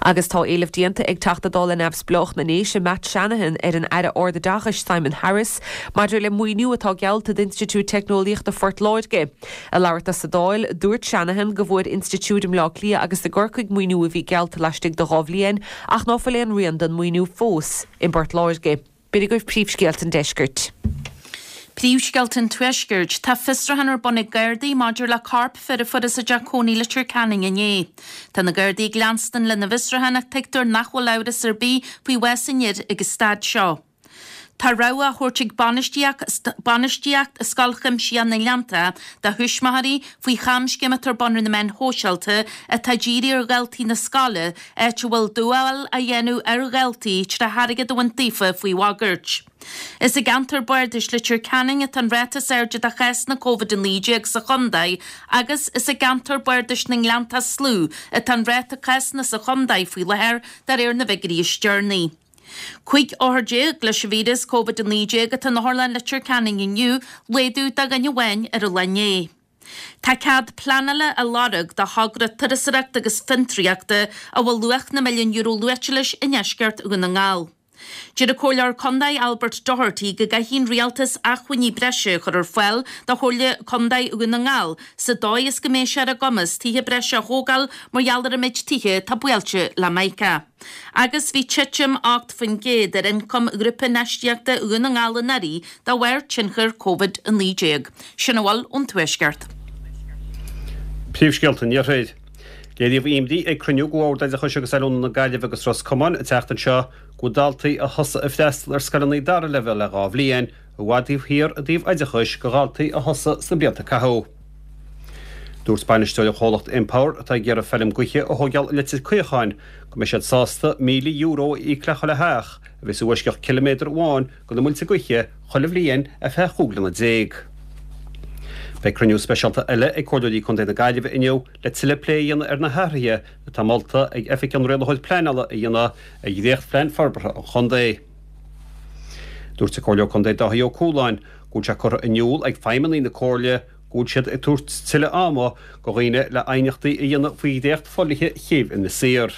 Speaker 3: Agus tá éileamh déanta ag Teachta Dála Neamhspleách na nDéise Matt Shanahan ar an Aire Ardoideachais Simon Harris maidir le maoiniú atá geallta d'Institiúid Teicneolaíochta Phort Láirge. Ag labhairt dó sa Dáil, dúirt Shanahan go bhfuair institiúid i mBleá Cliath agus i gCorcaigh maoiniú a bhí geallta laistigh de dha bhliain ach ná fuil aon rian den maoiniú fós i bPort Láirge. B'in agaibh príomhscéalta an deiscirt.
Speaker 4: Príomhscéalta an Tuaiscirt. Tá fiosrúchán ar bun ag Gardaí maidir le corp fir a fuarthas i dteach cónaí i Leitir Ceanainn inné. Tá na Gardaí ag leanstan lena bhfiosrúchán ach tuigtear nach bhfuil amhras ar bith faoi bhás an fhir ag an staid seo. Tá rabhadh á thabhairt ag bainistíocht Scoil Chuimsitheach na nGleanntach do thuismitheoirí faoi chamscéim atá ar bun ar na meáin shóisialta atá dírithe ar dhaltaí na scoile, áit a bhfuil dúmhál á dhéanamh ar dhaltaí tré airgead a bhaint daofa faoi bhagairt. Is i gceantar bardais Leitir Ceanainn atá an ráta is airde de chásanna Covid-19 sa chontae agus is i gceantar bardais na nGleanntach is lú atá an ráta cásanna sa chontae faoi láthair de réir na bhfigiúirí is deireanaí. 15 othar leis an víreas Covid-19 atá in Otharlann Leitir Ceanainn inniu, laghdú de dhuine amháin ar an lá inné. Tá cead pleanála á lorg do thogra turasóireachta agus fiontraíochta a bhfuil luach na milliún euro luaite leis i ndeisceart Dhún na nGall. Deir an Comhairleoir Contae Albert Doherty go gcaithfidh an Rialtas acmhainní breise a chur ar fáil do Chomhairle Contae Dhún na nGall sa dóigh is go mbeidh sé ar a gcumas tithe breise a thógáil mar gheall ar an méid tithe atá buailte le mica. Agus bhí titim 8% ar ioncam Ghrúpa Infheistíochta Dhún na nGall anuraidh de bharr tionchar Covid-19. Sin a bhfuil ón Tuaisceart.
Speaker 5: Príomhscéalta an Iarthair. Léiríodh imní ag cruinniú de Bhord Oideachais agus Oiliúna na Gaillimhe agus Ros Comáin an tseachtain seo go bhfuil daltaí a thosaigh ag freastal ar scoileanna dara leibhéal le 2 bhliain i bhfad taobh thiar i dtaobh oideachais de dhaltaí a thosaigh sna blianta a caitheadh. Dúirt bainisteoir an chomhlacht Empower, atá ag iarraidh feilm gaoithe a thóigeáil i Leitir Caocháin, go mbeidh siad sásta €1,000 a íoc le chuile theach a bheas i bhfoisceacht ciliméadar amháin de na muilte gaoithe chuile bhliain ar feadh 15 bliana. Beidh cruinniú speisialta eile ag Comhairleoirí Contae na Gaillimhe inniu le tuilleadh plé a dhéanamh ar na hathruithe atá molta ag Oifig an Rialaitheoir Pleanála a dhéanamh ar dhréachtphlean forbartha an chontae. Dúirt an Comhairleoir Contae Dáithí Ó Cualáin go bhfuil sé curtha in iúl ag feidhmeannaigh na Comhairle go bhfuil siad ag tabhairt tuilleadh ama do dhaoine le aighneachtaí a dhéanamh faoi dhréacht fodhlíthe Chéibh Inis Oírr.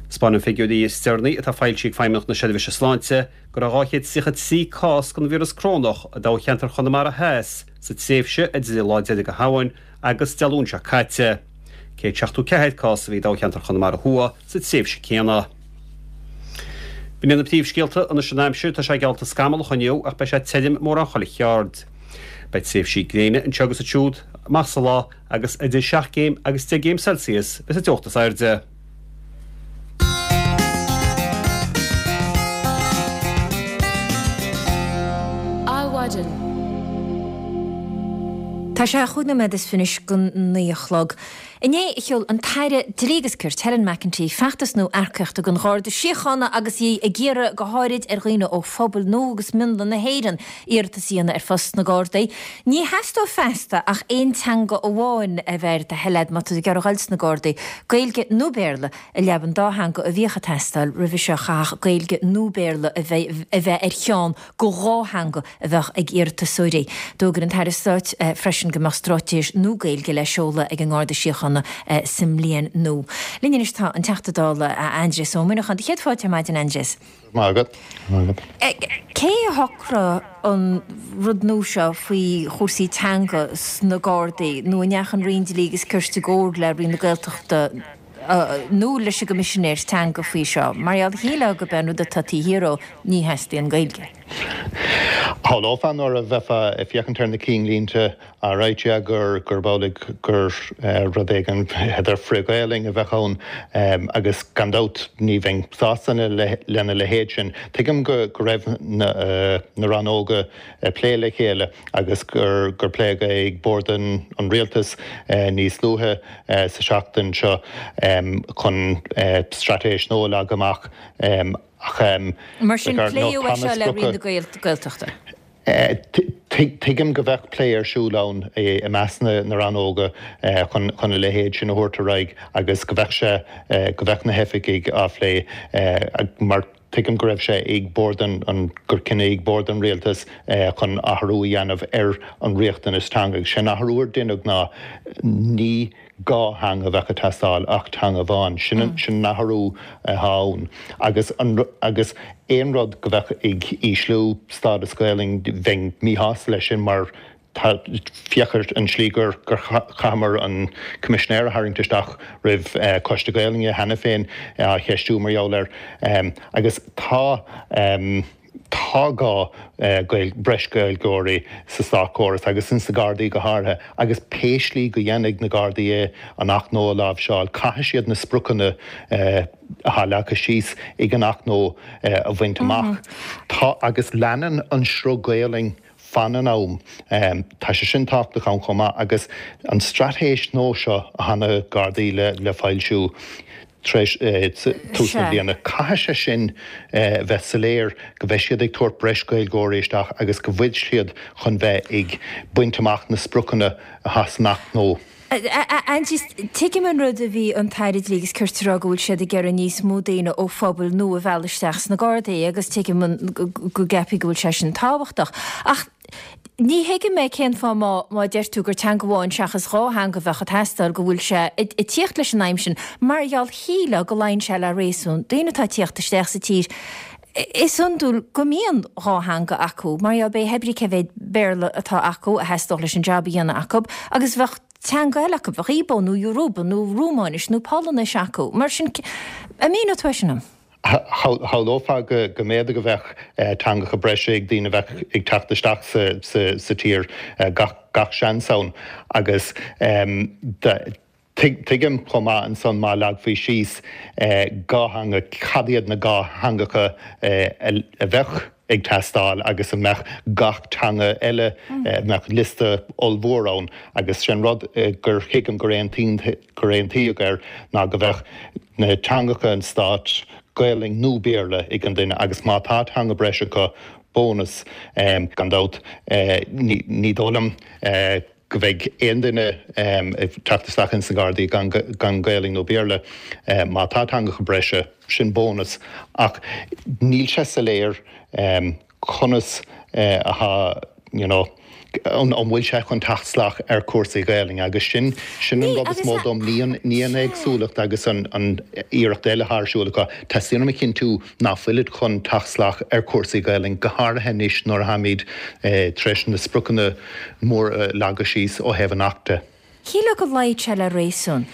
Speaker 5: Spáineann figiúirí is deireanaí atá foilsithe ag Feidhmeannacht na Seirbhíse Sláinte go raibh 233 cás den víreas corónach i dtoghcheantar Chonamara Theas sa tréimhse idir an lá deiridh de Shamhain agus Dé Luain seo caite. 174 cás a bhí i dtoghcheantar Chonamara Thuaidh sa tréimhse céanna. B'in iad na príomhscéalta anois an aimsir, tá sé geallta scamallach inniu ach beidh sé tirim mórán chuile cheard. Beidh tréimhsí gréine anseo agus ansiúd amach sa lá agus idir 7 gcéim agus 10 gcéim Celsius bheas an teocht is airde.
Speaker 1: Adhmhaidin. Tá sé chúig nóiméad is fiche anois go 9 a chlog. Inné a sheol an tAire Dlí agus Cirt, Helen McEntee, feachtas nua earcaíochta don Gharda Síochána agus í ag iarraidh go háirid ar dhaoine ó phobail nua agus mionlaigh na hÉireann iarratas a dhéanamh ar phost sna Gardaí. Ní theastóidh feasta ach aon teanga amháin a bheith ar do thoil a'd má tá tú ag iarraidh a dhul sna Gardaí, Gaeilge nó Béarla, i leaba an dá theanga a bhíodh ag teastáil roimhe seo chaithfeadh Gaeilge nó Béarla a bheith ar cheann de dhá theanga a bheadh ag iarratasóirí. D'fhógair an tAire Stáit freisin go mbeadh straitéis nua Gaeilge le seoladh ag an nGarda Síochána sa mbliain nua. Linn anois tá an Teachta Dála Aindrias Ó Muineacháin. Do chéad fáilte ar maidin, Aindrias.
Speaker 10: Maith agat. Maith agat.
Speaker 1: Cé a shocraigh an rud nua seo faoi chúrsaí teanga sna Gardaí nó an ndeachaigh an Roinn Dlí agus Cirt i gcomhar le Roinn na Gaeltachta nó leis an gCoimisinéir Teanga faoi seo? Mar gheall, shílfeá gurb é an rud atá taobh thiar dhó, ní theastaíonn Gaeilge.
Speaker 10: Shamhlófá nuair a bheifeá ag féachaint ar na cinnlínte all right yeah gur gurb amhlaidh gur rud éigin b'fhéidir frith-Ghaelainn a bheadh ann agus gan dabht ní bheinn sásta lena leithéid sin. Tuigim go raibh na rannóga ag plé le chéile agus gur gur pléadh é ag Bord an Rialtais níos luaithe sa seachtain seo chun straitéis nua a leagadh amach.
Speaker 1: Ach Mar sin, pléadh é seo le Roinn na Gaeltachta?
Speaker 10: Tuigim go bheadh plé ar siúl ann i measc na rannóga chun a leithéid sin a thabhairt ar aghaidh agus go bheadh sé, go bheadh na hoifigigh á phlé mar tuigim go raibh sé ag bord an, gur cinneadh ag bord an rialtais chun athrú a dhéanamh ar an riachtanas teanga. Agus sé an athrú ar deineadh ná ní dhá theanga a bheadh ag teastáil ach teanga amháin. Sin an sin an athrú atá ann. Agus an agus aon rud go bheadh ag ísliú stádas Gaelainn bheinn míshásta leis sin mar tá féach ar an slí gur gur chaitheamar an Coimisinéir a tharraingt isteach roimh Coiste Gaelainne cheana féin á cheistiú mar gheall air. Agus tá. Tá gá breis Gaeilgeoirí sa státchóras agus ins na Gardaí go háirithe agus pé slí go dhéanfaidh na Gardaí é an Acht nua a láimhseáil, caithfidh siad na spriocanna atá leagtha síos ag an Acht nua a bhaint amach. Tá agus leanann an sruth Gaelainn fan an am. Tá sé sin tábhachtach ann chomh maith agus an straitéis nua seo atá na Gardaí le foilsiú tar éis tús na bliana, caithfidh sé sin bheith soiléir go mbeidh siad ag tabhairt breis Gaeilgeoirí isteach agus go bhfuil siad chun bheith ag baint amach na spriocanna atá san Acht nua.
Speaker 1: A Aindrias, tuigim an rud a bhí an tAire Dlí agus Cirt a rá go bhfuil siad ag iarraidh níos mó daoine ó phobail nua a mhealladh isteach sna Gardaí agus tuigim go gceapfaí go bhfuil sé sin tábhachtach. Ach ní thuigim é cén fáth má má deir tú gur teanga amháin seachas dhá theanga a bheadh ag teastáil go bhfuil sé ag tíocht leis an aidhm sin mar gheall shílfeá go luíonn sé le réasún daoine atá ag tíocht isteach sa tír Is iondúil go mbíonn dhá theanga acu, mar gheall pé brí cé mhéad Béarla atá acu a theastódh leis an jab a dhéanamh acu, agus bheadh teanga eile acu, bheadh Igbo nó Yoruba nó Rúmáinis nó Polainnis acu. Mar sin, an míneodh tú é sin dom?
Speaker 10: Shamhlófá go mb'fhéidir go mbeadh teangacha breise ag daoine a bheadh ag teacht isteach sa tír, gach seans ann, agus Tuigim chomh maith ansan má leagfaí síos dhá theanga, cad iad na dhá theangacha a bheadh ag teastáil agus an mbeadh gach teanga eile, an mbeadh liosta ollmhór ann agus sé an rud gur thuigim gur aontaíodh air ná go mbeadh na teangacha an stáit, Gaelainn nó Béarla ag an duine agus má tá teanga breise acu, bónas gan dabht. Ní dóigh liom. go mbeidh aon duine ag teacht isteach ins na Gardaí gan Gaelainn nó Béarla. Má tá teangacha breise, sin bónas. Ach níl sé soiléir conas atá, you know, an bhfuil sé chun teacht salach ar chúrsaí Gaelainne agus sin, sin an rud is mó dom, ní an, ní an éagsúlacht agus an, an iarracht eile atá ar siúl acu. Teastaíonn uaim a chinntiú ná fuilid chun teacht salach ar chúrsaí Gaelainne, go háirithe anois nuair atháimid tar éis na spriocanna móra a leagadh síos ó thaobh an Acht de.
Speaker 1: Shílfeá go luífeadh sé le réasún.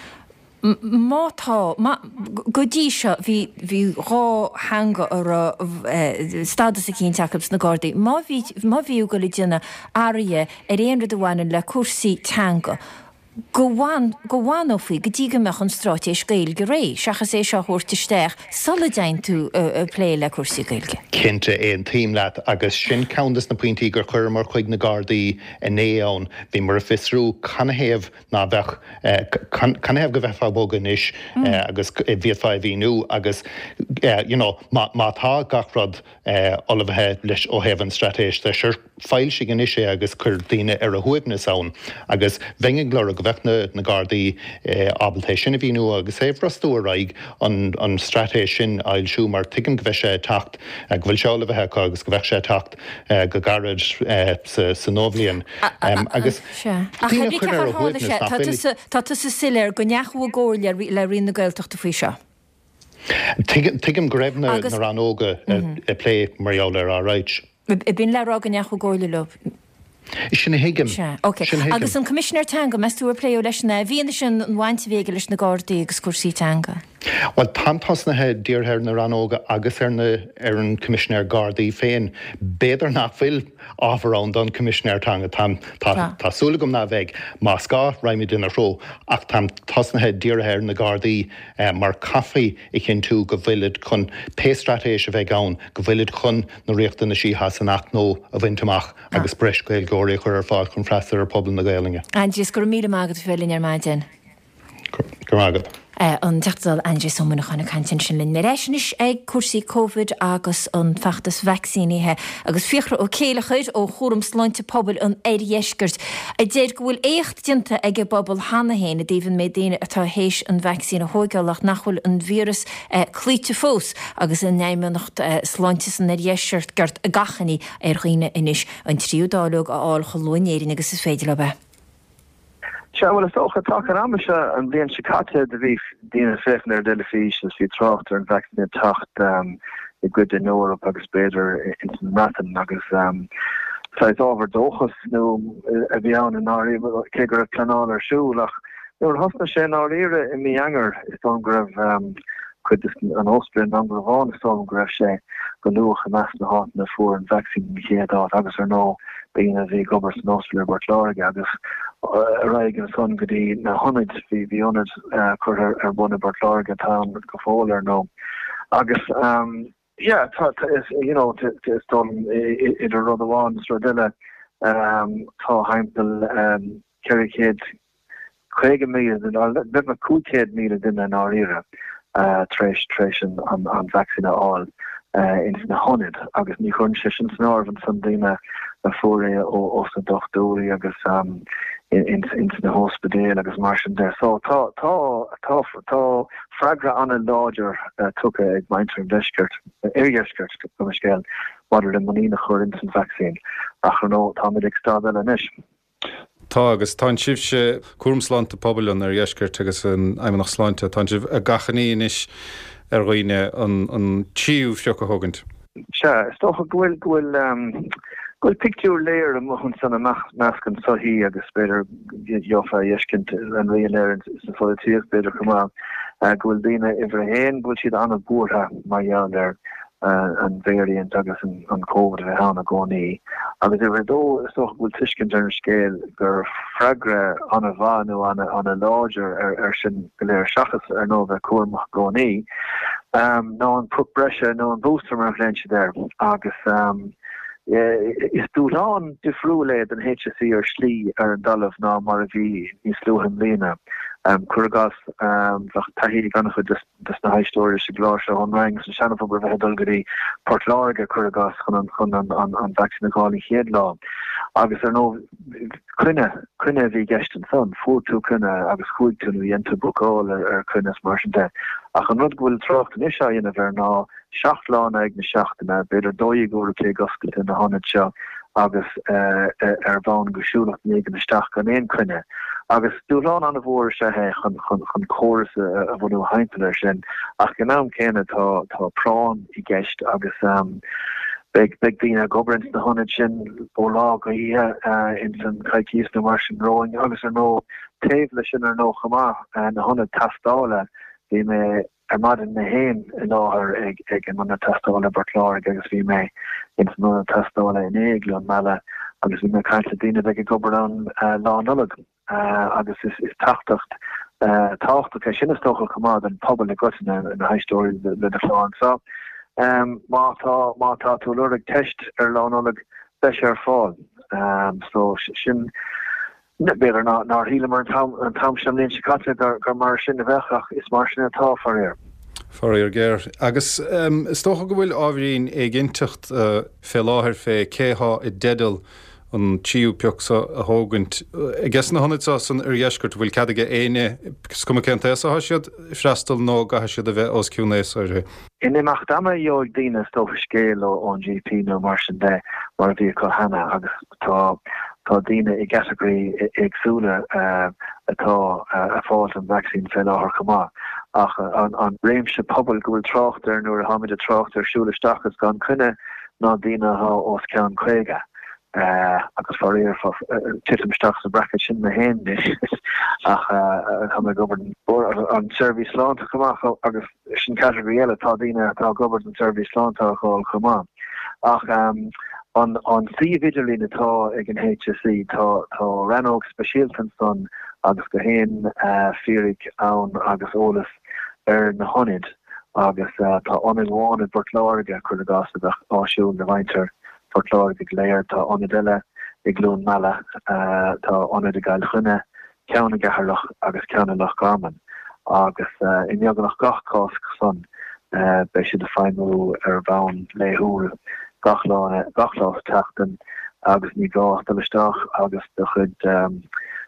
Speaker 1: Má tá, má, go dtí seo bhí, bhí dhá theanga a raibh stádas eicínt acu sna Gardaí. Má bhí, má bhí tú ag dul ag déanamh athraithe ar aon rud a bhaineann le cúrsaí teanga, go bhfan, go bhfanófaí go dtí go mbeadh an straitéis Gaeilge réidh, seachas é seo a thabhairt isteach sula dtéann tú ag plé le cúrsaí Gaeilge.
Speaker 10: Cinnte, aontaím leat agus sin ceann des na pointí gur chuireamar chuig na Gardaí inné ann. Bhíomar ag fiosrú canathaobh ná beadh, canathaobh go mbeifeá ag bogadh anois agus bhféadfá é a mhíniú agus you know má, má tá gach rud ullmhaithe leis ó thaobh an straitéis de, sure. Foilsigh anois é agus cuir daoine ar a shuaimhneas ann agus bheinn ag lorg go mbeadh na Gardaí ábalta é sin a mhíniú agus é a bhrostú ar aghaidh an straitéis sin a fhoilsiú mar tuigim go mbeidh sé ag teacht, go bhfuil sé ullmhaithe acu agus go mbeadh sé ag teacht go gairid sa nuabhliain agus
Speaker 1: daoine a chur ar a shuaimhneas nach bhfuil. Tá tusa soiléir go ndeachaigh i gcomhairle le Roinn na Gaeltachta faoi seo.
Speaker 10: Tuigim go raibh na rannóga ag plé mar gheall air, alright.
Speaker 1: B'in le rá go ndeachaigh i gcomhairle leo.
Speaker 10: Sin a thuigim. Sea,
Speaker 1: ok. Sin a thuigim. Agus an Coimisinéir Teanga, meas tú ar pléadh leis-sean é, i bhfianaise an bhaint a bhí aige leis na Gardaí agus cúrsaí teanga?
Speaker 10: Bhuel, táim tosnaithe dírithe ar na rannóga agus ar na, ar an Coimisinéir Gardaí féin. B'fhéidir nach bhfuil ábhar ann don Coimisinéir Teanga. Táim, tá, tá súil agam ná bheidh. Más gá, raghaimid ina threo. Ach táim tosnaithe dírithe ar na Gardaí mar caithfí a chinntiú go bhfuilid chun, pé straitéis a bheidh ann, go bhfuilid chun na riachtanaisí atá san Acht nua a bhaint amach agus breis Gaeilgeoirí a chur ar fáil chun freastal ar phobal na Gaelainne.
Speaker 1: Aindrias, go raibh míle maith agat as bheith linn ar maidin.
Speaker 10: Go raibh maith agat.
Speaker 1: An Teachta Dála Aindrias Ó Muineacháin ag caint ansin linn. Ar ais anois ag cúrsaí Covid agus an feachtas vacsaínithe agus Fiachra Ó Céileachair ó Chúram Sláinte Pobail an Oirdheiscirt a deir go bhfuil éacht déanta ag an bpobal cheana féin i dtaobh an méid daoine atá théis an vacsaín a thóigeáil ach nach bhfuil an víreas cloíte fós agus an Fheidhmeannacht Sláinte san Oirdheisceart ag achainí ar dhaoine anois an tríú dáileog a fháil chomh luath in Éirinn agus is féidir leo é.
Speaker 11: Sea, bhuel, is dócha, taca an ama seo an bhliain seo caite do bhí daoine ag féachaint ar an dteilifís agus bhí trácht ar an vacsaín ag teacht i gcuid den Eoraip agus b'fhéidir ins an mBreatain agus saghas ábhar dóchas nó a bhí ann i ndáiríre, cé go raibh pleanáil ar siúl ach Nuair a thosnaigh sé i ndáiríre i mí Eanáir, is dóigh liom go raibh. Cuid de an ospidéal i nDún Garbhán is dóigh liom go raibh sé go luath i measc na háiteanna a fuair an vacsaín den chéad áit agus ar ndóigh daoine a bhí ag obair san ospidéal i bPort Láirge agus ar aghaidh ansan go dtí na hionaid, bhí bhí ionad curtha ar bun i bPort Láirge atá ann go fóill ar ndóigh agus yeah tá tá is you know is dóigh liom idir rud amháin is rud eile tá thimpeall 450,000 duine, beagnach 500,000 duine i ndáiríre, tar éis tar éis an vacsaín a fháil ins na hionaid agus ní chuireann sé sin san áireamh ansan daoine a fuair é ós na dochtúirí agus ins na hóspidéil agus mar sin de. So tá tá tá tá freagra an-láidir tugtha ag muintir an deiscirt, oirdheiscirt, gabh mo leithscéal, maidir le muinín a chur ins an vacsaín ach ar ndóigh táimid ag staid eile anois.
Speaker 5: Tá, agus tánn sibhse, Cúram Sláinte Pobail an Oirdheiscirt agus an Fheidhmeannacht Sláinte, tánn sibh ag achainí anois ar dhaoine an tríú phioc a thógaint.
Speaker 11: Sea, is dócha go bhfuil, go bhfuil, go bhfuil pictiúr léir amuigh ansan i measc an tsochaí agus b'fhéidir gheofá a fheiscint an rian air sa pholaitíocht b'fhéidir chomh maith, go bhfuil daoine uimhir a haon, go bhfuil siad an-bhuartha mar gheall ar an variant agus an Covid a bheith ann i gcónaí. Agus uimhir a dó, is dócha go bhfuil tuiscint ar an scéal gur freagra an-mhaith nó an-láidir ar sin go léir, seachas ar ndóigh bheith cúramach i gcónaí, ná an pioc breise nó an booster mar a ghlaonn siad air. Agus is dúshlán difriúil é don HSE ar shlí ar an dtalamh ná mar a bhí níos luaithe i mbliana. Cuir i gcás, bheadh taithí ag an-chuid de des na héisteoirí sa gclár seo ón Rinn sa seanphobal a bheith ag dul go dtí Port Láirge, cuir i gcás, chun an chun an an an vacsaín a fháil an chéad lá. Agus ar ndóigh, coinne, coinne a bhí i gceist ansan. Fuair tú coinne agus chuaigh tú nó dhein tú bookáil ar ar coinne is mar sin de. Ach an rud go bhfuil trácht anois á dhéanamh air ná 7 lá in aghaidh na seachtaine, b'fhéidir 12 uair a chloig oscailte na hionaid seo agus ar bhonn go siúlfadh duine éigin isteach gan aon coinne. Agus dúshlán an-mhór is ea é chun chun córas a bhunú thimpeall air sin ach ag an am céanna tá tá práinn i gceist agus beidh beidh daoine ag obair ins na hionaid sin ó lá go hoíche ins an coicíos nó mar sin romhainn agus ar ndóigh taobh leis sin ar ndóigh chomh maith na hionaid tástála bhí mé ar maidin mé féin i láthair ag ag an ionad tástála i bPort Láirge agus bhí mé ins an ionad tástála inné i gCluain Meala agus bhí mé ag caint le daoine a bheidh ag obair ann Lá Nollag agus is is teachtaireacht tábhachtach é sin is dócha chomh maith don phobal i gcoitinne, na héisteoirí le do chlár anseo. Má tá má tá tú ag lorg teist ar Lá Nollag beidh sé ar fáil. So sin B'fhéidir nár shíleamar an t-am seo an bhliain seo caite gur mar sin a bheadh ach is mar sin atá, faraor.
Speaker 5: Faraor géar. Agus is dócha go bhfuil ábhairín éiginnteacht fé láthair fé cé thá i dteideal an tríú pioc so a thógaint. Ages na hionaid so san oirdheisceart, an bhfuil cead aige éinne, is cuma cén t-aos athá siad, freastal nó an gcaithfidh siad a bheith os cionn aosa uirthi?
Speaker 11: In imeacht ama gheobhaidh daoine is dócha scéal ón GP nó mar sin de mar a bhí acu cheana agus Tá tá daoine i gcatagóirí éagsúla atá ag fáilt an vacsaín fé láthair chomh maith. Ach an réimse pobail go bhfuil trácht air nuair atáimid ag trácht ar siúl isteach is gan coinne ná daoine atá os cionn 50. Agus faraor titim isteach sa bracket sin mé féin anois ach tá mé ag obair don tseirbhís sláinte chomh maith agus Sin category eile, tá daoine atá ag obair don tseirbhís sláinte á fháil chomh maith. Ach an suíomh idirlín atá ag an HSE, tá tá rannóg speisialta ansan agus gach aon fíric ann agus eolas ar na hionaid agus tá ionad amháin i bPort Láirge, cuir i gcás, a bheadh áisiúil do mhuintir Phort Láirge go léir, tá ionad eile i gCluain Meala, tá ionad i gCill Chainnigh, ceann i gCeatharlach agus ceann i Loch Garman, agus i mbeagnach gach cás san beidh siad ag feidhmiú ar bhonn laethúil gach lá gach lá sa tseachtain agus ní gá ach dul isteach agus do chuid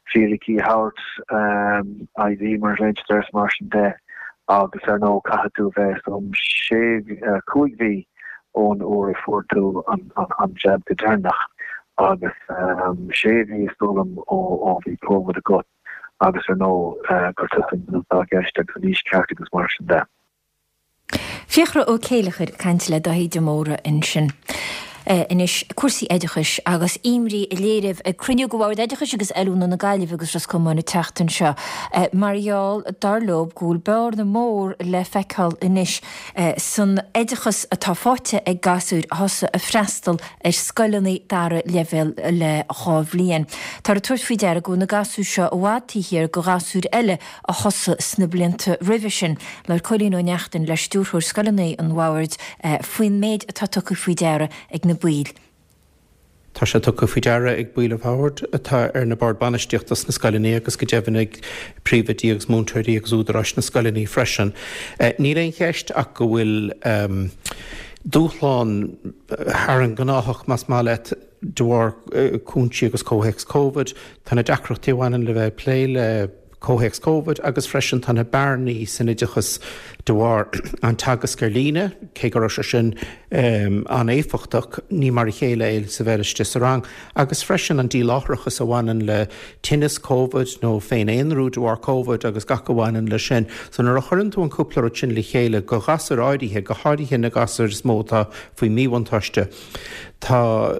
Speaker 11: fíricí a thabhairt, ID mar a ghlaonn siad air is mar sin de agus ar ndóigh caithfidh tú bheith some sé, 5 mhí ón uair a fuair tú an jab go deireanach agus sé mhí is dóigh liom ó bhí Covid agat agus ar ndóigh gur tusa an duine atá i gceist agus an aois ceart agus mar sin de.
Speaker 1: Fiachra Ó Céileachair ag caint le Dáithí de Mórdha ansin. Anois, cúrsaí oideachais agus imní á léiriú ag cruinniú de Bhord Oideachais agus Oiliúna na Gaillimhe agus Ros Comáin an tseachtain seo mar gheall, dar leo, go bhfuil bearna mór le feiceáil anois san oideachas atá faighte ag gasúir a thosaigh ag freastal ar scoileanna dara leibhéal le 2 bhliain. Táthar ag tabhairt faoi deara go bhfuil na gasúir seo i bhfad taobh thiar de ghasúir eile a thosaigh sna blianta roimhe sin. Labhair Cóilín Ó Neachtain le Stiúrthóir Scoileanna an Bhoird faoin méid atá tugtha faoi deara ag na baill.
Speaker 12: Tá sé tugtha faoi deara ag baill an Bhoird atá ar na Boird Bainistíochta sna scoileanna agus go deimhin ag príomhoidí agus múinteoirí agus údaráis na scoileanna freisin. Níl aon cheist ach go bhfuil dúshlán thar an ngnáthach, más maith leat, de bharr cúinsí agus comhthéacs Covid. Tá na deacrachtaí a bhaineann le bheith ag plé le comhthéacs Covid agus freisin tá na bearnaí san oideachas de bharr an teagasc ar líne, cé go raibh sé sin an-éifeachtach, ní mar a chéile é is a bheith istigh sa rang, agus freisin an díláithreachas a bhaineann le tinneas Covid nó féin-aonrú de bharr Covid agus gach a bhaineann leis sin. So nuair a chuireann tú an cúpla rud sin le chéile do ghasúir áirithe, go háirithe na gasúir is mó atá faoi mhíbhuntáiste, Tá,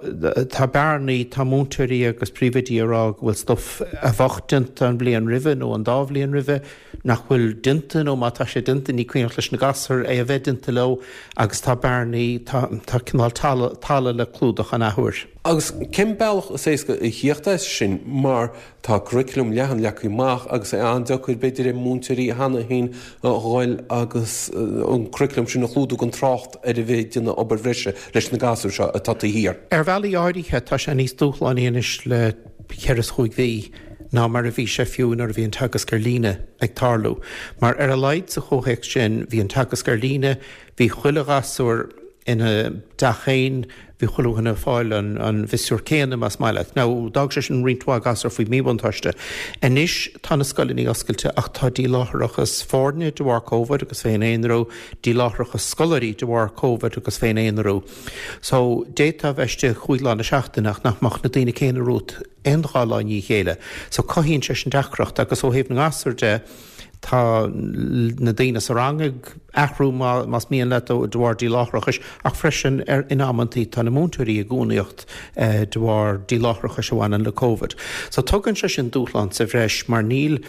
Speaker 12: tá bearnaí, tá múinteoirí agus príomhoidí ag rá go bhfuil stuif a bheadh déanta an bhliain roimhe nó an dá bhliain roimhe nach bhfuil déanta nó má tá sé déanta ní cuimhneach leis na gasúir é a bheith déanta leo agus tá bearnaí, tá, tá cineál talamh, talamh le clúdach an athuair.
Speaker 13: Agus cén bealach is éasca a thíocht as sin mar Tá curriculum leathan leagtha amach agus é an-deacair b'fhéidir ar mhúinteoirí cheana féin a dhul agus an curriculum sin a chlúdú gan trácht ar a bheith ag déanamh obair bhreise leis na gasúir seo atá taobh thiar.
Speaker 12: Ar bhealaí áirithe tá sé níos dúshlánaí anois le ceithre is chúig mhí ná mar a bhí sé fiú nuair a bhí an teagasc ar líne ag tarlú. Mar ar a laghad sa chomhthéacs sin bhí an teagasc ar líne, bhí chuile ghasúr ina dteach féin, bhí chuile dhuine ag fáil an mhiosúr céanna, más maith leat. Now, d'fhág sé sin roinnt mhaith gasúr faoi mhíbhuntáiste. Anois tá na scoileanna oscailte ach tá díláithreachas foirne de bharr Covid agus féin-aonrú, díláithreachas scoláirí de bharr Covid agus féin-aonrú. So, d'fhéadfá a bheith istigh chúig lá na seachtaine ach nach mbeadh na daoine céanna romhat aon dhá lá i ndiaidh a chéile. So, cothaíonn sé sin deacracht agus ó thaobh na ngasúr de, Tá na daoine sa rang ag athrú más mian leat de bharr díláithreachais ach freisin in amantaí tá na múinteoirí i gcúngaíocht de bharr díláithreachais a bhaineann le Covid. So tugann sé sin dúshlán sa bhreis mar níl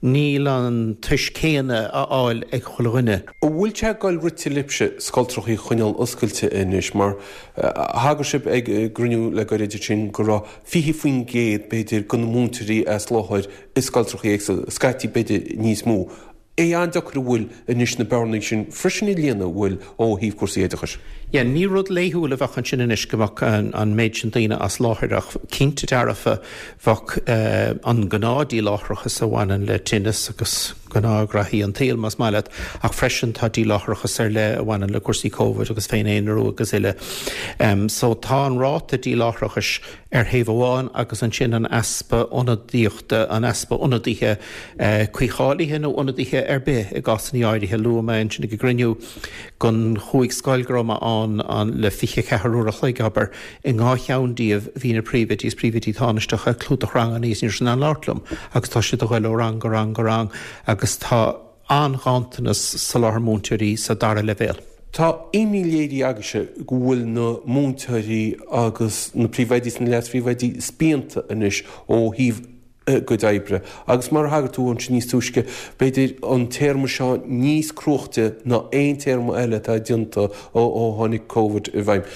Speaker 12: níl an tois céanna á fháil ag chuile dhuine.
Speaker 13: An bhfuil sé ag goil rite libhse scoltrachaí a choinneáil oscailte anois mar thagair sibh ag gcruinniú le gairid ansin go raibh 20% b'fhéidir de na múinteoirí as láthair i scoltrachaí éagsúla, scaití b'fhéidir níos mó. É an-deacair an bhfuil anois na bearnaí sin freisin a líonadh an bhfuil ó thaobh cúrsaí oideachais.
Speaker 12: Yeah, ní rud laethúil a bheadh ansin anois go mbeadh an méid sin daoine as láthair ach cinnte dearfa bheadh an gnáth-díláithreachas a bhaineann le tinneas agus gnáthghraithí an tsaoil más maith leat ach freisin tá díláithreachas ar leith a bhaineann le cúrsaí Covid agus féin-aonrú agus uile. So tá an ráta díláithreachais ar thaobh amháin agus ansin an easpa ionadaíochta, an easpa ionadaithe cuícháilithe nó ionadaithe ar bith i gcásanna áirithe. Luaigh mé ansin ag an gcruinniú den chúig scoil go raibh mé ann le 24 uair a chloig, abair, i ndhá cheann díobh bhí na príomhoidí is príomhoidí tánaisteacha ag clúdach ranganna is ní raibh siad in ann labhairt liom agus tá siad a ghoil ó rang go rang go rang agus tá an-ghanntanas soláthar múinteoirí sa dara leibhéal.
Speaker 13: Tá imní léirithe agaibhse go bhfuil na múinteoirí agus na príomhoidí is na leas-phríomhoidí spíonta anois ó thaobh a gcuid oibre agus mar a thagair tú ansin níos túisce, b'fhéidir an téarma seo níos cruaichte ná aon téarma eile atá déanta ó tháinig Covid i bhfeidhm.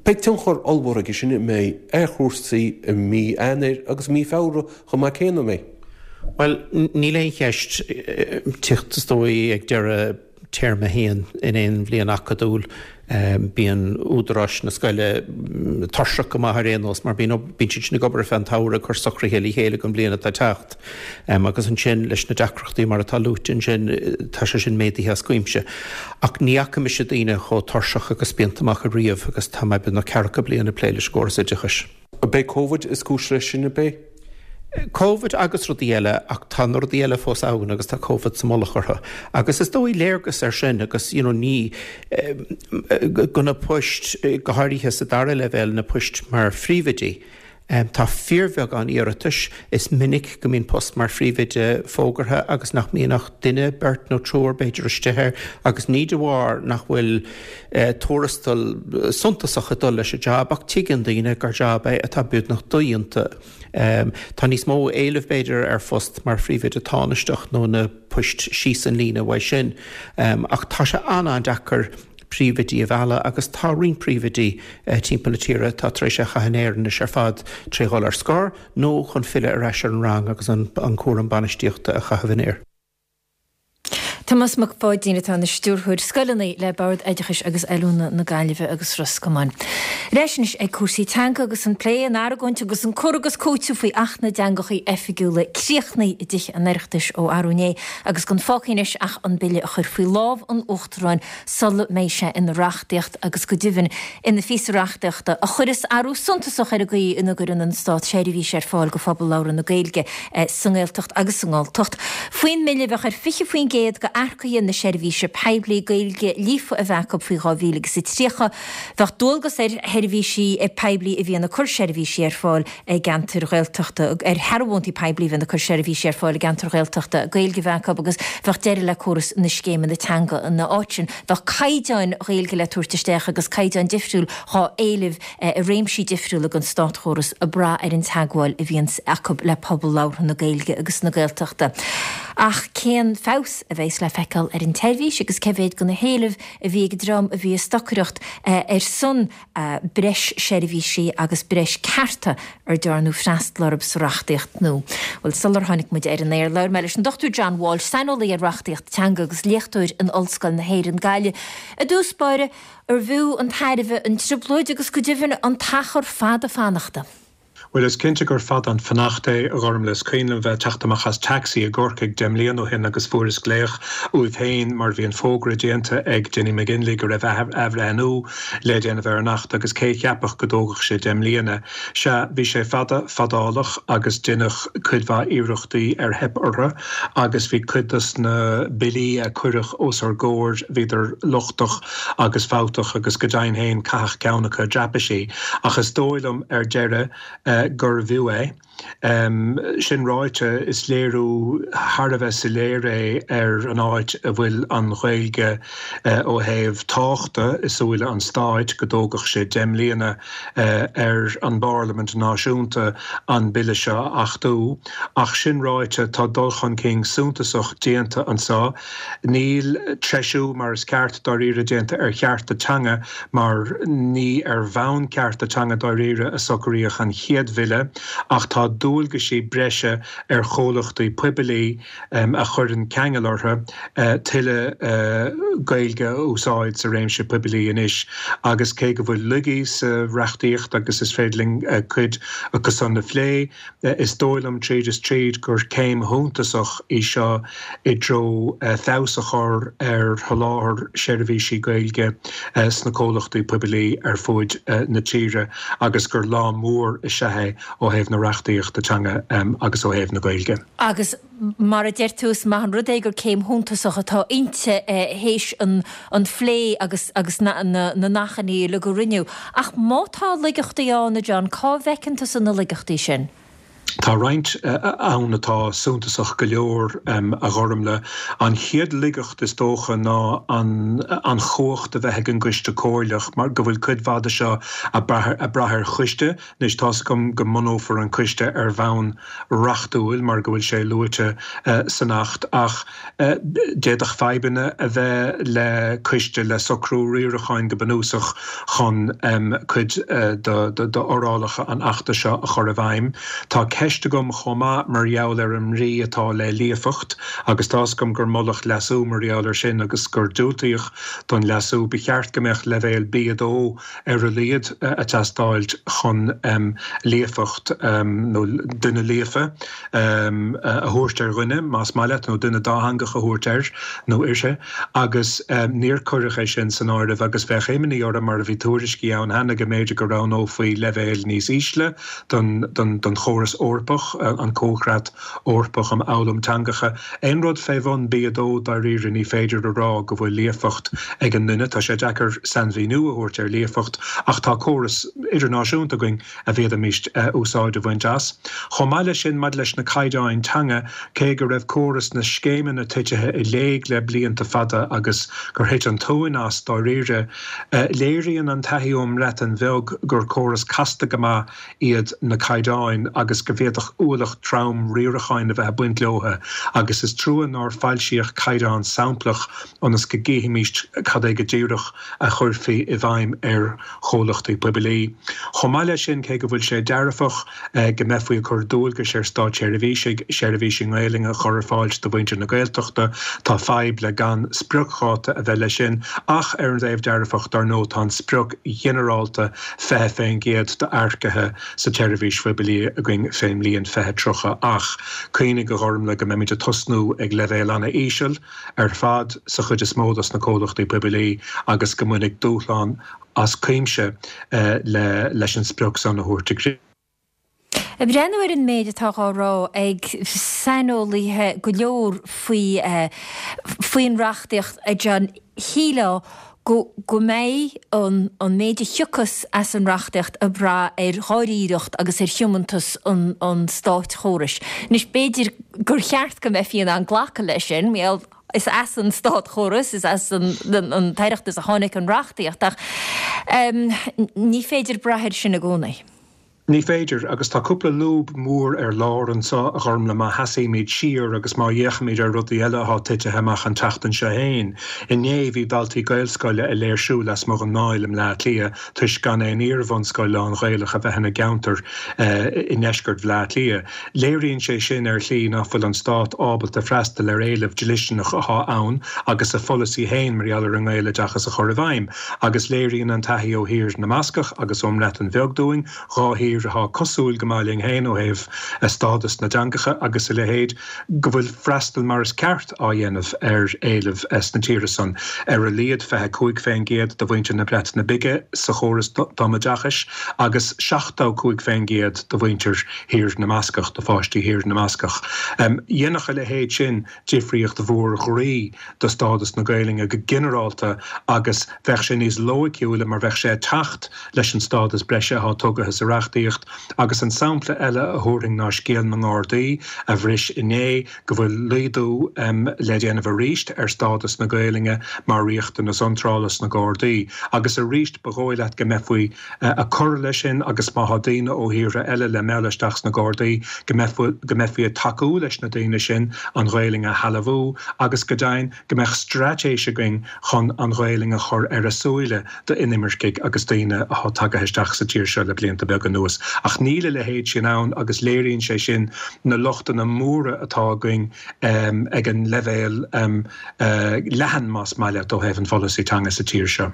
Speaker 13: Beidh tionchar ollmhór aige sin, an mbeidh, ar chúrsaí i mí Eanáir agus i mí Feabhra chomh maith céanna, an mbeidh?
Speaker 12: Bhuel, níl aon cheist, teacht is dóigh ag deireadh téarma a haon in aon bhliain acadúil, bíonn údaráis na scoile tuirseach go maith ar aon nós mar bíonn bíonn siad sin ag obair ar feadh an tsamhraidh ag cur socruithe le chéile don bhliain atá ag teacht. Agus ansin leis na deacrachtaí mar atá luaite ansin, tá sé sin méadaithe as cuimse. Ach ní fhaca mise daoine chomh tuirseach agus spíonta amach ariamh agus tá mé beagnach ceathracha bliain ag plé leis an gcóras oideachais.
Speaker 13: Ab é Covid is cúis leis sin, ab é?
Speaker 12: Covid agus rudaí eile ach tá na rudaí eile fós ann agus tá Covid sa mullach orthu. Agus is dóigh léargas air sin agus you know ní go na poist, go háirithe sa dara leibhéal, na poist mar phríomhoidí. Tá fíorbheagán iarratais. Is minic go mbíonn post mar phríomhoide fógartha agus nach mbíonn ach duine, beirt nó triúr b'fhéidir istigh air agus ní de bharr nach bhfuil tuarastal suntasach ag dul leis an jab ach tuigeann daoine gur jab é atá beagnach dodhéanta. Tá níos mó éilimh b'fhéidir ar phost mar phríomhoide tánaisteach nó na poist síos an líne uaidh sin ach tá sé an-an-deacair príomhoidí a mhealladh agus tá roinnt príomhoidí timpeall na tíre atá tar éis é a chaitheamh in aer anois ar fad tré dhul ar scor nó chun filleadh ar ais ar an rang agus an cúram bainistíochta a chaitheamh in aer.
Speaker 1: Tomás Mac Pháidín atá ina Stiúrthóir Scoileanna le Bord Oideachais agus Oiliúna na Gaillimhe agus Ros Comáin. Ar ais anois ag cúrsaí teanga agus an plé, an argóint agus an cur agus cúiteamh faoi Acht na dTeangacha Oifigiúla críochnaithe i dTithe an Oireachtais ó arú inné agus gan fágtha anois ach an bille a chur faoi lámh an Uachtaráin sula mbeidh sé ina reachtaíocht agus go deimhin ina phíosa reachtaíochta a chuirfeas athrú suntasach ar an gcaoi ina gcuireann an Stát seirbhís ar fáil do phobal labhartha na Gaeilge sa nGaeltacht agus sa nGalltacht. Faoin mbille bheadh ar 20% d'earcaithe na seirbhíse poiblí Gaeilge líofa a bheith acu faoi 2030. Bheadh dualgas ar sheirbhísí poiblí a bhíonn ag cur seirbhísí ar fáil i gceantair Ghaeltachta, ar shearbhóntaí poiblí a bhíonn ag cur seirbhísí ar fáil i gceantair Ghaeltachta, Gaeilge a bheith acu agus bheadh deireadh le córas na scéimeanna teanga ina áit sin. Bheadh caighdeáin Ghaeilge le tabhairt isteach agus caighdeáin difriúil dhá éileamh i réimsí difriúla den státchóras ag brath ar an teagmháil a bhíonns acu le pobal labhartha na Gaeilge agus na Gaeltachta. Ach cén feabhas a bheas le feiceáil ar an tseirbhís agus cé mhéad de na héilimh a bhí ag an dream a bhí ag stocaireacht ar son breis seirbhísí agus breis cearta ar dearnadh freastal orthu sa reachtaíocht nua. Bhuel, sular tháinig muid ar an aer, labhair mé leis an Dr John Walsh, saineolaí ar reachtaíocht teanga agus léachtóir in Ollscoil na hÉireann, Gaillimh. I dtús báire, arbh fhiú an tairbhe an trioblóid agus go deimhin an t-achar fada fanachta?
Speaker 14: Bhuel, is cinnte gur fada an fanacht é, a Ghormlaith. Is cuimhin liom bheith ag teacht amach as taxi i gCorcaigh 10 mbliana ó shin agus fuaireas glaoch uaidh féin mar bhí an fógra déanta ag Dinny McGinley go raibh athbhreithniú le déanamh ar an Acht agus cé a cheapfadh go dtógfadh sé 10 mbliana. Sea, bhí sé fada fadálach agus deineadh cuid mhaith iarrachtaí ar theip orthu agus bhí cuid dos na billí a cuireadh os ár gcomhair, bhíodar lochtach agus fabhtach agus go deimhin féin caitheadh ceann acu i dtraipisí. Ach is dóigh liom ar deireadh gurbh fhiú é. Sin ráite, is léiriú thar a bheith soiléir é ar an áit a bhfuil an Ghaeilge ó thaobh tábhachta i súile an stáit go dtógfadh sé 10 mbliana ar an bParlaimint náisiúnta an bille seo a achtú. Ach sin ráite, tá dul chun cinn suntasach déanta anseo. Níl treisiú mar is ceart dáiríre déanta ar chearta teanga mar ní ar bhonn cearta teanga dáiríre a socraíodh an chéad bhille ach tá dualgaisí breise ar chomhlachtaí poiblí a chuireann ceangal orthu tuilleadh Gaeilge a úsáid sa réimse poiblí anois agus cé go bhfuil laigí sa reachtaíocht agus is féidir linn cuid acu san a phlé, Is dóigh liom tríd is tríd gur céim shuntasach í seo i dtreo feabhas a chur ar sholáthar seirbhísí Gaeilge sna comhlachtaí poiblí ar fuaid na tíre agus gur lá mór is ea é ó thaobh na reachtaíochta teanga agus ó thaobh na Gaeilge.
Speaker 1: Agus mar a deir tú, is maith an rud é gur céim shuntasach atá inti théis an phlé agus agus na n-achainí uilig a rinneadh. Ach má tá laigeachtaí ann, a John, cá bhfeiceann tusa na laigeachtaí sin?
Speaker 14: Tá roinnt ann atá suntasach go leor, a Ghormlaith. An chéad laigeacht, is dócha, ná an chumhacht a bheith ag an gCoiste Comhairleach, mar go bhfuil cuid mhaith de seo ag brath ar choiste. Anois, tá's agam go mbunófar an coiste ar bhonn reachtúil mar go bhfuil sé luaite san Acht, ach d'fhéadfadh fadhbanna a bheith le coiste, le socrú riaracháin go bunúsach chun cuid d'fhorálacha an Achta seo a chur i bhfeidhm. Tá ceist agam chomh maith mar gheall ar an mbrí atá le líofacht, agus tá's agam gur moladh leasú mar gheall air sin agus gur diúltaíodh don leasú. Ba cheart go mbeadh leibhéal B2 ar a laghad ag teastáilt chun líofacht nó duine líofa a thabhairt ar dhuine, más maith leat, nó duine dátheangach a thabhairt air nó uirthi, agus níor cuireadh é sin san áireamh agus bheadh imní orm, mar a bhí tuairiscí ann cheana, go mb'fhéidir go roghnófaí leibhéil níos ísle don chóras. Eorpach, an Comhchreat Eorpach um Fhoghlaim Teangacha. Aon rud fé bhun B2, dáiríre, ní féidir a rá go bhfuil líofacht ag an nduine. Tá sé deacair sainmhíniú a thabhairt ar líofacht ach tá córas idirnáisiúnta againn a bhféadfaimis úsáid a bhaint as. Chomh maith leis sin, maidir leis na caighdeáin teanga, cé go raibh córas na scéimeanna titithe i léig le blianta fada agus gur thit an tóin as, dáiríre, léiríonn an taithí ón mBreatain Bheag gur córas casta go maith iad na caighdeáin agus go bhféadfadh ualach trom riaracháin a bheith ag baint leo agus is trua nár foilsíodh caighdeán samplach ionas go gcífimís cad é go díreach a chuirfí i bhfeidhm ar chomhlachtaí poiblí. Chomh maith leis sin, cé go bhfuil sé dearfach go mbeifí ag cur dualgais ar státseirbhísigh seirbhísí Gaelainne a chur ar fáil do mhuintir na Gaeltachta, tá fadhb le gan spriocdháta a bheith leis sin ach ar an dtaobh dearfach, dar ndóigh, tá an sprioc ghinearálta 20% d'earcaithe sa tseirbhís phoiblí againn fén mbliain 2030 ach cuimhnigh, a Ghormlaith, go mbeimid ag tosnú ag leibhéal ana-íseal ar fad sa chuid is mó dos na comhlachtaí poiblí agus go mbainfidh dúshlán as cuimse leis an sprioc san a thabhairt i gcrích.
Speaker 1: Ag breathnú ar an méid atá dhá rá ag saineolaithe go leor faoi faoin reachtaíocht, a John, shílfeá go go mbeidh an an méid a thiocfas as an reachtaíocht ag brath ar dháiríreacht agus ar thiomantas an an státchórais. Anois b'fhéidir gur cheart go mbeifí in ann glacadh leis sin, mar is as an státchóras, is as an an tOireachtas a tháinig an reachtaíocht ach ní féidir brath air sin i gcónaí.
Speaker 14: Ní féidir, agus tá cúpla lúb mhór ar lár anseo, a Ghormlaith, má sheasaímid siar agus má fhéachaimid ar rudaí eile atá titithe amach an tseachtain seo fhéin. Inné, bhí daltaí Gaelscoile ag léirsiú lasmuigh den nDáil i mBleá Cliath toisc gan aon iar-bhunscoil lán-Ghaelach a bheith ina gceantar i ndeisceart Bhleá Cliath. Léiríonn sé sin ar shlí nach bhfuil an Stát ábalta freastal ar éileamh dlisteanach atá ann agus a pholasaí fhéin mar gheall ar an nGaeloideachas a chur i bhfeidhm. Agus léiríonn an taithí ó thír na mBascach agus ón mBreatain Bheag dúinn, dhá thír atá cosúil go maith linn féin ó thaobh stádas na dteangacha agus a leithéid, go bhfuil freastal mar is ceart á dhéanamh ar éilimh sna tíortha san. Ar a laghad 25% de mhuintir na Breataine Bige sa chóras tumoideachais agus 75% de mhuintir Thír na mBascach, de pháistí Thír na mBascach. Dhéanfadh a leithéid sin difríocht mhór ghroí do stádas na Gaelainne go ginearálta agus bheadh sé níos loighciúla mar bheadh sé ag teacht leis an stádas breise atá tugaithe sa reachtaíocht. Agus an sampla eile a thabharfainn ná scéal na nGardaí a bhris inné, go bhfuil laghdú le déanamh arís ar stádas na Gaelainne mar riachtanas iontrála sna Gardaí. Agus arís ba dhóigh leat go mbeifí ag cur leis sin agus má thá daoine ó thíortha eile le mealladh isteach sna Gardaí, go mbeifí ag tacú leis na daoine sin an Ghaelainn a shealbhú agus go deimhin go mbeadh straitéis againn chun an Ghaelainn a chur ar a súile d'inimircigh agus daoine athá tagaithe isteach sa tír seo le blianta beaga anuas. Ach níl a leithéid sin ann agus léiríonn sé sin na lochtanna móra atá againn ag an leibhéal leathan, más maith leat, ó thaobh an pholasaí teanga sa tír seo.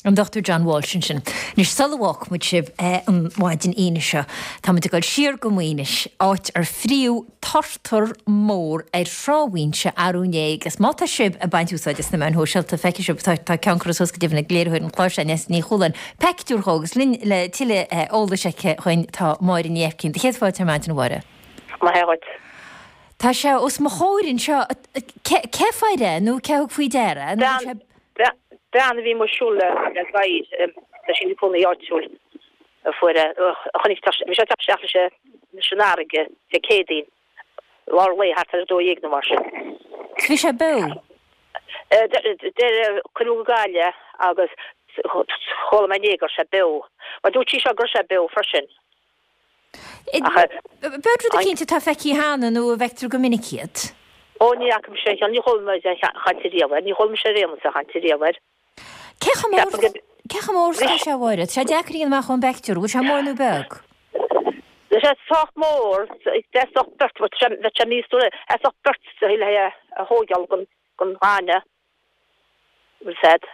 Speaker 1: An Dr John Walsh ansin. Anois, sula bhfágfaidh muid sibh an mhaidin Aoine seo, tá muid ag dul siar go Maínis, áit ar fríodh turtar mór ar Thrá Mhaínse arú inné agus má tá sibh ag baint úsáid as na meáin shóisialta, feicfidh sibh, tá tá ceann curtha suas go deimhin ag léiritheoir an chláir seo, Neasa Ní Chualáin, peictiúr dhó agus linn le tuilleadh eolais aici dhuinn tá Máire Ní Aibhcín. Do chéad fáilte ar maidin, a Mháire.
Speaker 15: Maith dhuit.
Speaker 1: Tá sé os mo chomhair anseo. Cé a fuair é nó cé a thug faoi deara é? Nó an
Speaker 15: sé. Bean a bhí amuigh ag siúl le gadhar, tá sí ina cónaí áitiúil, a fuair é, a chonaic, bhí sé ag teacht isteach leis an fharraige Dé Céadaoin, lár lae, thart ar 12 nó mar sin.
Speaker 1: Bhí sé beo?
Speaker 15: Deir, cuireadh go Gaillimh é agus chuala mé inné go raibh sé beo. Mar dúirt sí seo go raibh sé beo freisin.
Speaker 1: Ab ea rud eicínt atá feicthe cheana nó a bhfeictear go minic iad?
Speaker 15: Ó, ní fhaca mise aon cheann, ní chuala mé aon chaint ariamh air, ní chuala mise ar aon nós aon chaint ariamh air.
Speaker 1: Cé chomh mór, cé chomh mór is atá sé, a Mháire? Tá sé deacair a dhéanamh amach ón bpeictiúr, an bhfuil sé mór nó beag?
Speaker 15: Tá sé sách mór, theastódh beirt, bheadh sé míosúil, theastódh beirt le é a thóigeáil den ghaineamh. Bhfuil fhios a'd.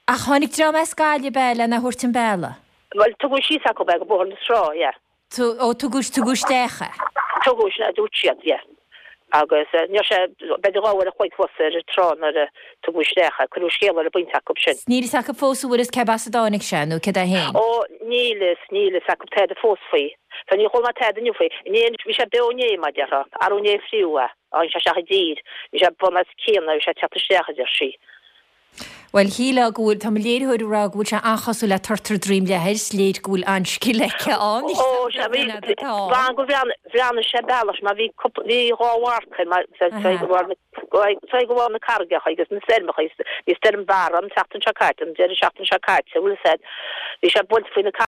Speaker 1: Ach tháinig dream as Gaillimh ab ea lena thabhairt an bealaigh?
Speaker 15: Bhuel, tugadh síos acu é go Bóthar na Trá, yeah.
Speaker 1: Ó, tugadh, tugadh isteach é.
Speaker 15: Tugadh, sin a dúirt siad, yeah. Agus ní raibh sé, b'fhéidir 2 uair a chloig fós ar an trá nuair a tugadh isteach é. Cuireadh scéala ar an bpointe acu sin.
Speaker 1: Níl fhios acu fós an bhfuil fhios cé as a dtáinig sé nó céard é féin.
Speaker 15: Ó, níl fhios, níl fhios acu tada fós faoi. So níor chuala mé tada inniu faoi. Inné, bhí sé beo inné, mar a déarfá. Arú inné a fríodh é. Tháinig sé isteach i dtír. Bhí sé bun os cionn, bhí sé ag teacht isteach, a deir sí.
Speaker 1: Bhuel, shílfeá go bhfuil, tá mo léiritheoir ag rá go bhfuil sé an-chosúil le turtar droim leathair, is léir go bhfuil an-scil aici ann.
Speaker 15: Ó, sea, bhí, b'ann go bhreathnaigh sé bealach, mar bhí cúpla, bhí dhá mharc air, mar sa ghabháil na carraigeacha agus na stoirmeacha, bhí stoirm Barra an tseachtain seo caite, an deireadh seachtaine seo caite, bhfuil fhios a'd, bhí sé buailte faoi na.